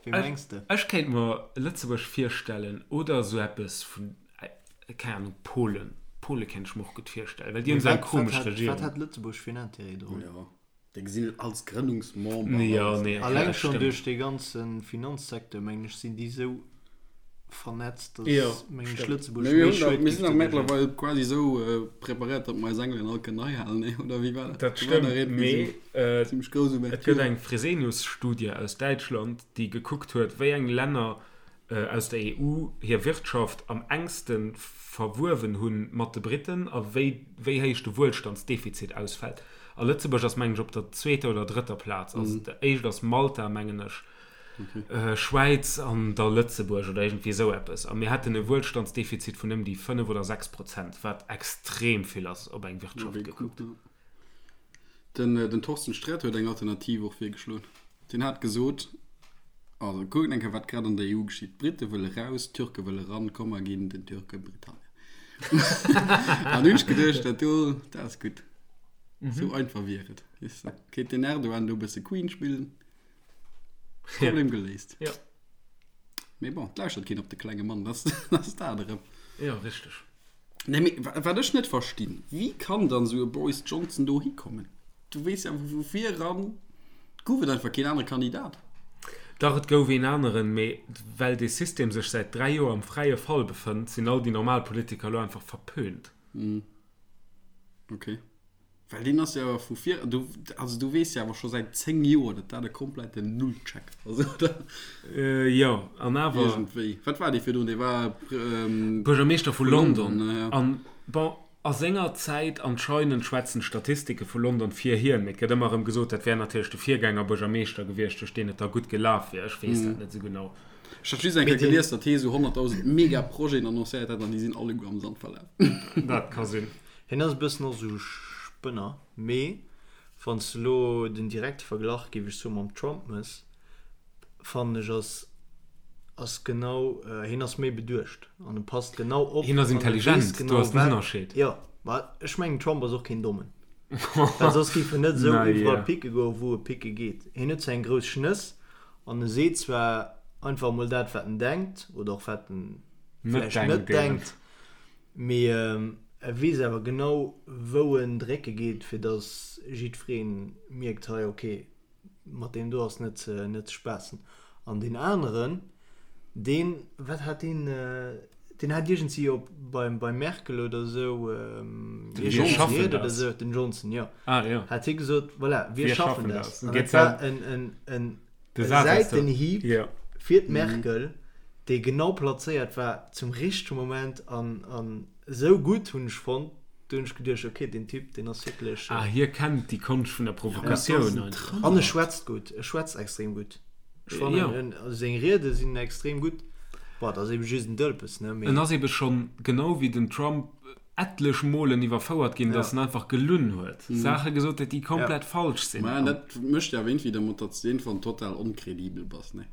C: Wéi mengs de?
B: Ech kéint mer Lëtzebuerg virstellen oder esou eppes vun Keng Ahnung, Polen. Pole kéint ech mer och gutt virstellen, well déi hunn esou eng komesch
C: Regierung. Wat hätt Lëtzebuerg fir en Intérêt drun?
A: Jo, déi gesinn et als Grënnungsmember.
B: Jo, nee,
C: okay, Alleng schonn duerch dee ganze Finanzsecteur, mengen ech, sinn déi esou vernetzt,
B: datt,
C: mengen ech, Lëtzebuerg méi
A: Schued Mir sinn awer mëttlerweil quasi esou preparéiert, datt mer eis Engelen all kënnen heihalen, nee, oder wéi war
B: dat? Dat stëmmt, mee et gëtt eng Fresenius-Studie aus Däitschland, déi gekuckt huet, wéi eng Länner aus der EU hir Wirtschaft am enkste verwuewen hu mat de Briten a wéi wéi héich de Wuelstandsdefizit ausfält. A Lëtzebuerg ass, mengen ech, op der zweeter oder drëtter Plaz. Also déi éischt ass Malta, mengen ech, Schwäiz an da Lëtzebuerg oder iergendwéi esou eppes. A mir hätten e Wuelstandsdefizit vun ëm déi 5 oder 6 Prozent, wat extrem vill ass op eng Wirtschaft gekuckt.
A: Den, den Thorsten Sträter huet eng Alternativ och virgeschloen. Deen hat gesot, also kuckt eng Kéier wat grad an der EU geschitt, d'Britte wëlle raus, d'Türke wëlle ran, komm mer ginn den Türke Britannien. An hunn ech geduecht, dat do, dat ass gutt. Esou einfach wier et, weess de. Kéint den Erdogan do e bësse Queen spillen, Problem geléist.
B: Jo.
A: Mee bon, et lauschtert keen op de klenge Mann, dat ass dat erëm.
B: Jo, richteg.
A: Nee, mee wat ech net verstinn, wéi kann dann esou e Boris Johnson do hikommen? Du weess ja vu vir eran, gouf et einfach keen anere Kandidat.
B: Dach, et gouf een aneren, mee well dee System sech säit 3 Joer am fräie Fall befënnt, sinn all déi normal Politiker elo einfach verpönt.
A: Ok. Well deen ass jo awer vu vir, du, also du weess jo awer scho säit 10 Joer, datt dat e kompletten Nullcheck ass, oder?
B: Jo, an awer.
A: Iergendwéi. Wat war dee virdrun? Dee war.
B: Buergermeeschter vu London. An, bon, a senger Zäit anscheinend schwätzen d'Statistike vu London fir hien, mee et gëtt ëmmer erëm gesot, dat wär natierlech de Virgängerbuergermeeschter gewiescht, duerch deen et da gutt gelaf wier. Ech weess dat net esou genau.
A: Ech hat just eng Kéier gelies, datt hie esou 100.000 Mega-Projeten annoncéiert hätt an déi sinn alleguer am Sand verlaf.
B: Dat ka sinn.
C: Hien ass e bëssen och esou Spënner, mee wann s de elo den direkte Verglach, géif ech soen, mam Trump mëss, fannen ech ass ass genau, hien ass méi beduecht an e passt genau op
B: Hien ass an e weess intelligent, do
C: genau
B: ass den
C: wat,
B: Ënnerscheed.
C: jo, ma ech mengen Trump ass och keen Dommen, well soss géif en net esou
B: Na
C: iwwerall
B: ja.
C: picke goen, wou e picke geet. Hien huet zwar eng grouss Schnëss an e seet zwar einfach emol dat wat en denkt oder och wat en
B: Net
C: vläicht net
B: denkt eben.
C: denkt, Mee e weess awer genau, wou en drécke geet, fir datt jiddweree mierkt, hei, ok, mat deem do ass net ze, net ze spaassen. An deen aneren, deen, wat hat deen, deen hat iergendwéi op beim, beim Merkel oder esou,
B: Den Wir schaffen
C: Ried oder
B: das.
C: esou, den Johnson, jo,
B: Ah, jo.
C: hat hie gesot, voilà, wir
B: Wir
C: schaffen
B: schaffen
C: das.
B: das.
C: An
B: Geet
C: dat war en, en, en
B: De Saz ass do.
C: Säitenhieb
B: Jo.
C: fir d'Merkel, dee genau plazéiert war zum richtege Moment an an esou gutt hunn ech fonnt, do hunn ech geduecht, ok, deen Typ, deen ass wierklech.
B: Ah, hie kennt déi Konscht vun der Provokatioun
C: einfach. An e schwätzt gutt, e schwätzt extrem gutt. Ech fannen, en, also seng Riede sinn extrem gutt. Bon, et ass ebe just en Dëlpes, ne,
B: mee. En ass ebe schonn, genau wéi den Trump, etlech Molen iwwerfouert ginn, dass en einfach gelunn huet, Saache gesot huet, déi komplett falsch sinn.
A: Mä dat mécht jo awer iergendwéi dermat, datt s de iergendwann total onkredibel bass, ne?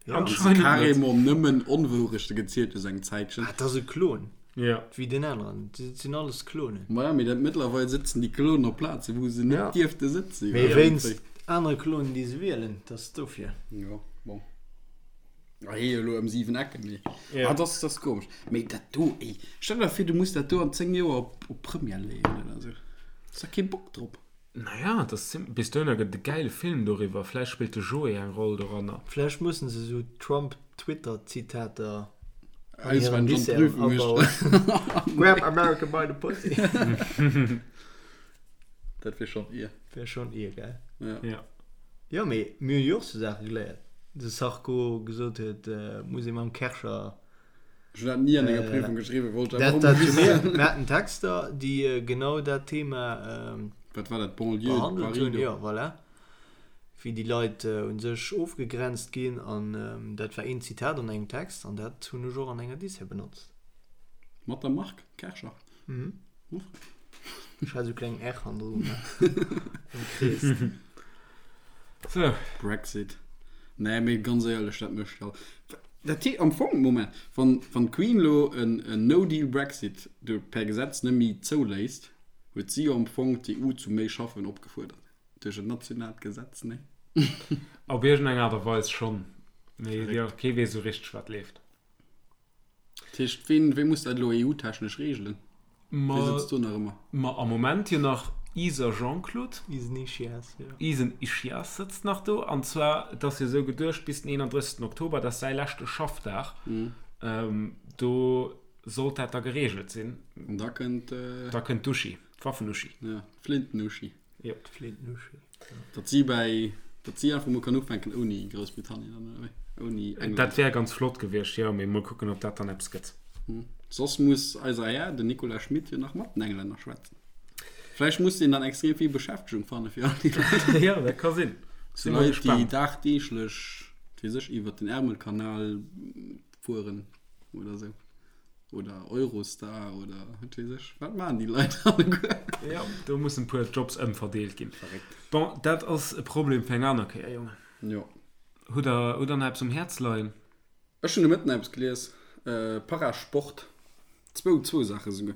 C: Ja.
B: Anscheinend net.
A: Carrément nëmmen Onwourechte gezielt hues eng Zäitchen.
C: Ah, dat ass e Klon.
B: Ja.
C: Wéi deen aneren. Dat sinn alles Klonen.
A: Maja, mee dat mëttlerweil sëtzen déi Klonen op Plazen, wou se net
C: Ja.
A: dierfte sëtzen.
C: Mee wéinst. Anere kloen, déi se wielen, dat ass dofir.
A: Jo, bon. Ah, hee elo ëm 7 Ecken, mee. Ja. Ah, das, das komesch. Mee dat do, ey, stell der vir, du muss dat do an 10 Joer op, op Première leeën oder esou. Hues da kee Bock drop.
B: Naja, das zim, bis dohinner gëtt et e gäile Film doriwwer. Vläicht spillt de Joé eng Roll doranner.
C: Vläicht mussen se esou Trump-Twitter-Zitater an hiren Disserten abauen. Grab America by the pussy.
A: Dat wier schonn ier.
C: Wär schonn ier, gell?
A: Ja.
B: Ja.
C: Jo, mee mir hunn jo och sou Saache geléiert. De Sarko gesot huet, muss ee mam Kärcher.
A: Ech hunn dat ni an enger Prüfung geschriwwen, wollt ech
C: einfach emol wissen. Mir haten Texter, déi genau dat Thema
A: Wat war dat, Banlieue de
C: behandelt hunn. Jo, voilà. Wéi déi Leit u sech ofgegrenzt ginn. An dat war een Zitat an engem Text an dat hunn ech och an enger Dissert benotzt.
A: Mat der Mark Kärcher?
C: Mhm. Ech hat esou kleng R hannendru gemaach. Am Krees.
B: So.
A: Brexit. Nee, mee ganz éierlech, dat mécht all. Dat hee, am Fong, Moment, wann, wann d'Queen lo en, en No-Deal-Brexit do per Gesetz net méi zouléisst, huet si jo am Fong d'EU zu méi Schaffen opgefuerdert. Duerch en nationaalt Gesetz, nee?
B: Op iergendeng Aart a Weis schonn. Mee jo, kee weess esou richteg, wat leeft.
A: Dat heescht, ween, wee muss dat elo EU-technesch reegelen? Wee sëtzt do nach ëmmer?
B: Ma am Moment jo nach Iser Jean-Claude.
C: Isen Ischias, jo.
B: Isen Ischias sëtzt nach do. An zwar, et ass jo esou geduecht, bis den 31. Oktober, dat ass säi leschte Schaffdag, do sollt dat da gereegelt sinn.
A: An da kënnt.
B: Da kënnt d'Uschi, d'Waffen-Uschi.
A: Ja, d'Flinten-Uschi.
B: Jo.
C: D'Flinten-Uschi.
A: Datt si bäi, datt si einfach mol kann ufänken ouni Groussbritannien dann, oder wéi? Ouni
B: England. Dat wär ganz flott gewiescht, jo, mee mol kucken, ob dat dann eppes gëtt.
A: Soss muss eiser Här, den Nicolas Schmit, jo nach mat den Englänner schwätzen. Vläicht muss deen dann extrem vill Beschäftegung fanne fir all déi
B: Leit. Jo, dat ka sinn.
A: Sou Leit, déi dagdeeglech, wat weess ech, iwwert den Ärmelkanal fueren oder sou. Oder Eurostar oder wat weess ech. Wat maachen déi Leit alleguer?
B: Jo, do mussen e puer Jobs ëmverdeelt ginn.
A: Verréckt.
B: Bon, dat ass e Problem fir eng aner Kéier, Jongen.
A: Jo.
B: Hutt der, hutt der nach eppes um Häerz leien?
A: Ech hunn de Mëtten eppes gelies, Parasport, zwou, zwou Saache souguer.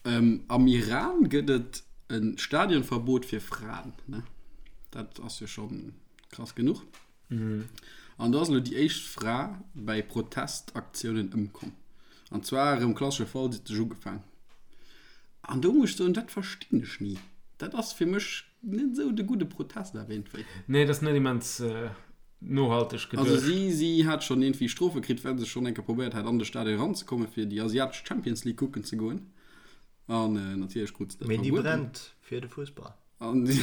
A: Am Iran gëtt et e Stadionverbot fir Fraen, ne? Dat ass jo scho krass genuch. An do ass elo déi éischt Fra bäi Protestaktiounen ëmkomm. An zwar erëm klassesche Fall, si huet sech ugefaang. An do muss ech soen, dat verstinn ech ni. Dat ass fir mech net esou de gudde Protest awer iergendwéi.
B: Nee, dat ass net immens nohalteg
A: geduecht. Also si, si hat schonn iergendwéi Strofe kritt, well se schonn eng Kéier probéiert hat, an de Stadion eranzekommen, fir déi asiatesch Champions League kucken ze goen. An natierlech krut se dat
C: Mee déi verbueden. brennt fir de Fussball.
A: An déi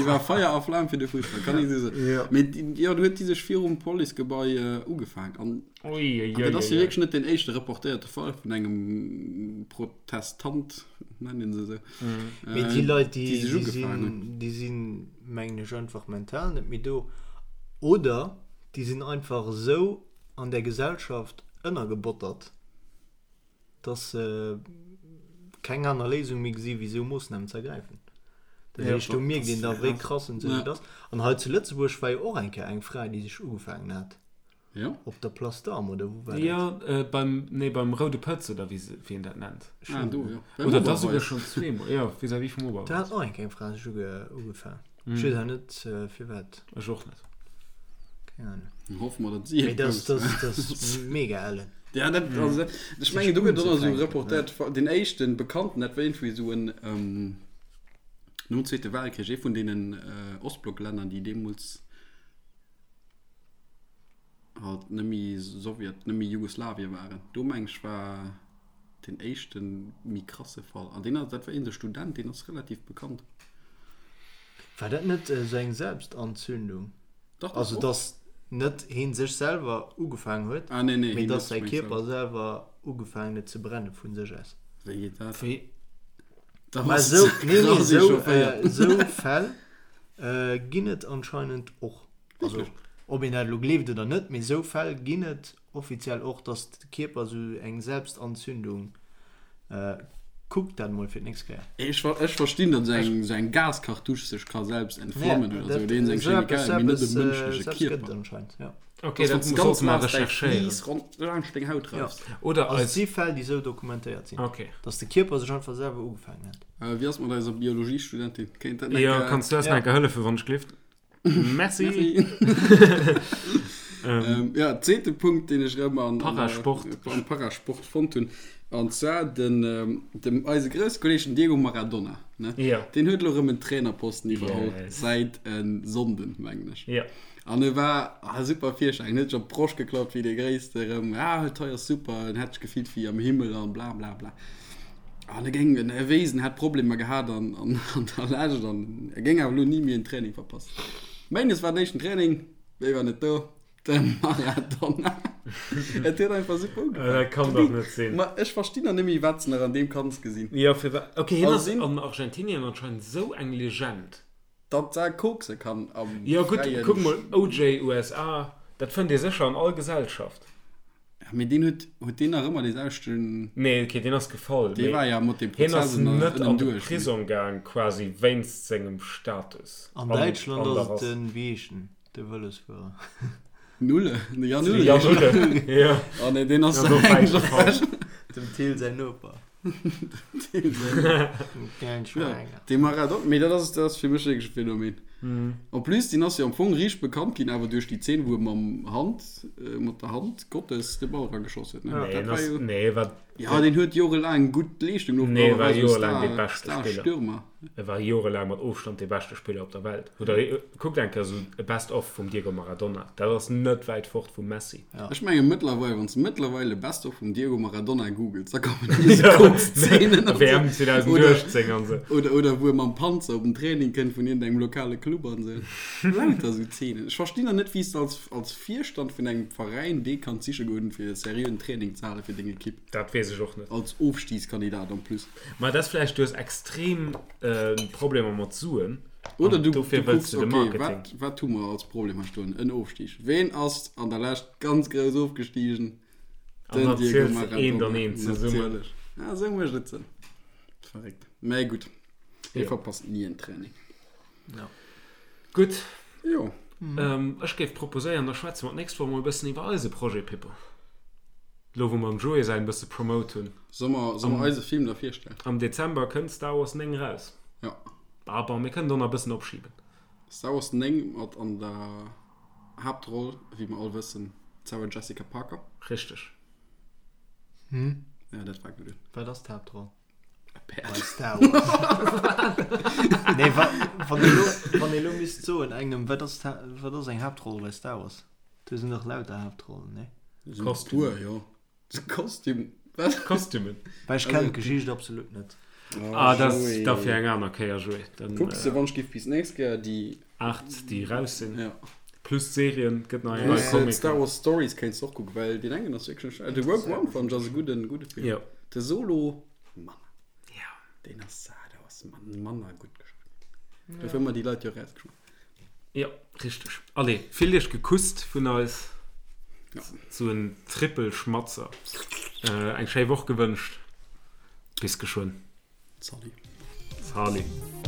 A: war Feier a Flam fir de Fussball, kann ee sou soen.
C: Jo.
A: Mee déi, jo, do huet déi sech virum Policegebai ugefaangen. An
B: Ui, ui,
A: dat ass jo
B: ui, ui.
A: wierklech net deen éischte reportéierte Fall vun engem Protestant, nennt een se esou,
C: Mee déi Leit, déi,
A: déi sech
C: déi
A: ugefaangen
C: sinn,
A: hunn.
C: déi sinn, mengen ech, einfach mental net méi do. Oder déi sinn einfach esou an där Gesellschaft ënnergebottert, dass se keng aner Léisung méi gesi wéi esou Moossnamen ze ergräifen. Dat heescht, do mierkt een da wéi krass un sech et ass. An hei zu Lëtzebuerg war jo och eng Kéier eng Fra, déi sech ugefaangen hat.
A: Jo.
C: Op der Place d'Armes, oder wou war dat?
B: Jo, beim, nee, beim Roude Pëtz, oder wéi se, wéi een dat nennt.
A: Ah, do, jo. Beim
B: Oder da souguer
A: Oberweis.
B: schonn zweemol, jo, vis-à-vis vum Oberweis.
C: Do hat och eng Kéier eng Fra sech uge, ugefaangen. Ech weess awer net, firwat.
B: Ech och net.
C: Keng Ahnung.
A: Hoffe mer, datt si
C: Mee dat, dat, dat ass mega ellen.
A: Ja, dat, also, dat, ech mengen, do gëtt och nach esou reportéiert, deen éischten Bekannten, dat war iergendwéi esou en, nom Zweete Weltkrich, ee vun deenen Ostblocklänner, déi deemools halt net méi Sowjet, net méi Jugoslawien waren. Do meng ech war deen éischte méi krasse Fall. An deen ass, dat war een esou Student, deen ass relativ bekannt.
C: War dat net esou eng Selbstanzündung?
A: Dach, dach,
C: Also
A: och.
C: dass net heen sech selwer ugefaangen huet,
A: Ah, nee, nee,
C: mee
A: heen
C: dass
A: huet
C: säi
A: sech
C: Kierper selwer ugefaangen huet ze brenne vun sech aus.
A: Wéi geet dat?
B: Wéi?
A: Da
C: Mä
A: bass
C: esou,
A: de
C: nee, nee,
A: krass
C: esou,
A: echaufféiert.
C: esou Fäll ginn et anscheinend och. Also, ob een dat elo gleeft oder net, mee esou Fäll ginn et offiziell och, dass de Kierper esou eng Selbstanzündung, kuckt dat emol fir d'nächst Kéier.
A: Ech ech verstinn, datt esou eng esou eng Gaskartusch sech ka selbst entflammen
C: Ja,
A: oder
C: dat,
A: esou, oder iergend eng
C: esou eppes,
A: Chemikalie, mee net e
C: eppes,
A: mënschleche
C: esou eppes gëtt et
A: Kierper.
C: anscheinend, ja.
B: Okay,
A: Dass
B: dat
A: wann s de
B: sollte
A: ganz
B: mer
A: naass däi
B: recherchéieren.
A: Fleece rond laanscht deng Haut
C: Ja.
A: raffs.
B: Oder
C: Also et
B: eis.
C: si Fäll, déi esou dokumentéiert sinn,
B: Okay.
C: dass de Kierper sech einfach selwer ugefaangen huet.
A: Wéi ass mat eiser Biologiestudentin? Kéint dat eng
B: Jo,
A: Kéier.
B: kanns du eis
C: Ja.
B: nach eng Kéier hëllefen, wann ech gleeft? Merci.
A: Merci. ähm, ja, zweete Punkt, deen ech rëm an,
B: Parasport.
A: An, am Parasport fonnt hunn. An zwar den, ähm, dem eise grousse Kolleg den Diego Maradona. Ne?
B: Ja.
A: Deen huet elo rëm en Trainerposten iwwerholl.
B: Yes.
A: Säit en Sonnden, mengen ech.
B: Ja.
A: An e war ah, super Virschein, huet sech op d'Broscht geklappt wéi dee Gréisste erëm. Ah, hei ass super, en hätt sech gefillt wéi am Himmel an bla bla bla. An e géing, en wéisst, en hätt Problemer gehat an, an, an der Lescht an e géing awer elo ni méi en Training verpassen. Méindes war den éischten Training, wéi war net do? De Maradona. Et huet einfach super ugefaangen.
B: Dat kann dach net sinn.
A: Ma ech verstinn nach net méi, wat se nach an deem Kanz gesinn.
B: Jo, firwat? Ok, hien
A: Also
B: ass an Argentinien anscheinend esou eng Legend.
A: Datt se kokse kann am
B: Jo gutt,
A: fräien.
B: kuck mol, OJ, USA, dat fënnt ee sécher an all Gesellschaft.
A: Ja, mee deen huet, huet deen nach ëmmer dee selwechten.
B: Nee, okay, deen ass gefall,
A: Dee
B: mee
A: war ja mat dem
B: hien
A: Prozess
B: ass
A: ënner,
B: net an de
A: ënnenduerch, mee.
B: Prisong gaang quasi wéinst sengem Status
C: An
B: an,
C: Däitschland
B: an der
C: ass et
B: Rass.
C: den, wéi heescht en, de Vëlosfuerer.
A: Nulle, de Jan
B: De
A: Ullrich.
B: Jan Ulle, jo.
A: Oh nee, deen ass
B: Deen ass och wäit
A: englesch
B: gefall.
A: ewech.
C: Dem Thill säin Noper.
A: Dee Maradona, mee dat ass, dat ass fir mech wierklech e Phänomen. En plus, deen ass jo am Fong riicht bekannt ginn, awer duerch déi Zeen, wou e mam Hand, mat der Hand Gottes de Ball erageschoss huet, ne?
B: Nee,
A: Dat
B: en
A: war
B: ass,
A: jo,
B: nee, wat,
A: ja, deen huet jorelaang gutt Leeschtung
B: nee,
A: ofgebracht,
B: war
A: war esou
B: jorelaang dee
A: Star,
B: beschte Spiller.
A: Star-Stürmer.
B: E war jorelaang mat Ofstand dee beschte Spiller op der Welt. Oder kuckt eng Kéier esou e Best of vum Diego Maradona. Dat ass net wäit fort vum Messi.
A: Ech menge mëttlerweil, wann s de mëttlerweil e Best of vum Diego Maradona googles, da kommen nëmme esou Koks-Zeenen an
B: WM
A: esou.
B: 2018 an esou.
A: Oder, oder wou e mam Panzer op den Training kënnt vun iergendengem lokale Club an esou. Lauter esou Zeenen. Ech verstinn nach net, wéi s de als, als Virstand vun engem Veräin dee kanns siche goen, fir e seriöen Training ze hale fir deng Ekipp.
B: Dat weess ech och net.
A: Als Ofstigskandidat en plus.
B: Ma dat ass vläicht, du hues extrem Problemer mat Suen.
A: Oder
B: An
A: du,
B: dofir
A: du
B: wëlls
A: kucks,
B: du de
A: okay,
B: Marketing.
A: wat, wat hu mer als Problem hei stoen? En Ofstig. Ween ass an der Lescht ganz grouss ofgestigen?
B: An
A: Den
B: dann
A: Diego
B: ziels de eent an
A: Maradona.
B: eent zesummen.
A: Natierlech. Ja, esou mécht et Sënn. Verréckt. Mä gutt, hie
B: Jo.
A: verpasst ni en Training.
C: Ja.
B: Gutt,
A: Jo.
B: ech géif proposéieren, da schwätze mer d'nächst Woch mol e bëssen iwwer eise Projet, Pippo. Lo wou mer dem Joé säin e bësse promote hunn.
A: Soll mer, soll mer eise Film da virstellen?
B: Am Dezember kënnt Star Wars 9 raus.
A: Ja.
B: Ah bon, mir kënnen do nach e bëssen opschiben.
A: Star Wars 9 mat an der Haaptroll, wéi mer all wëssen, d'Sarah Jessica Parker.
B: Richteg.
C: Hm?
A: Ja, dat war gutt.
C: Wat ass d'Haaptroll?
A: E Päerd.
C: Bei Star Wars. nee, wa, wann ee lo, wann ee lo misst soen engem, wat ass, wat ass eng Haaptroll bei Star Wars? Do sinn dach lauter Haaptrollen, nee?
A: Kostüm. Jo. Kostüm. Wat?
B: Kostümen.
C: Well ech kennen d'Geschicht absolut net.
B: Ah, dat ass da fir eng aner Kéier, Joé. Dann,
A: Kucks de wann ech giff bis nächst Kéier déi.
B: 8 déi raus sinn.
A: Ja.
B: Plus d'Serien, gëtt nach eng Rei
A: Plus
B: Comic.
A: d'Star Wars Stories kéints de och kucken, well deen engen ass wierklech net schlecht. De Rogue One fannen ech ass e gudden, gudde Film.
B: Jo.
A: De Solo manner.
B: Ja.
A: Deen ass, ah, do ass manner gutt geschriwwen. Dofir hu mer déi Leit jo erausgeschmiss.
B: Jo, richteg. Allez, fillt iech gekusst vun eis.
A: Ja.
B: Sou en Trippelschmatzer. Eng schéi Woch gewënscht. Bis geschwënn.
A: Salut.
B: Salut.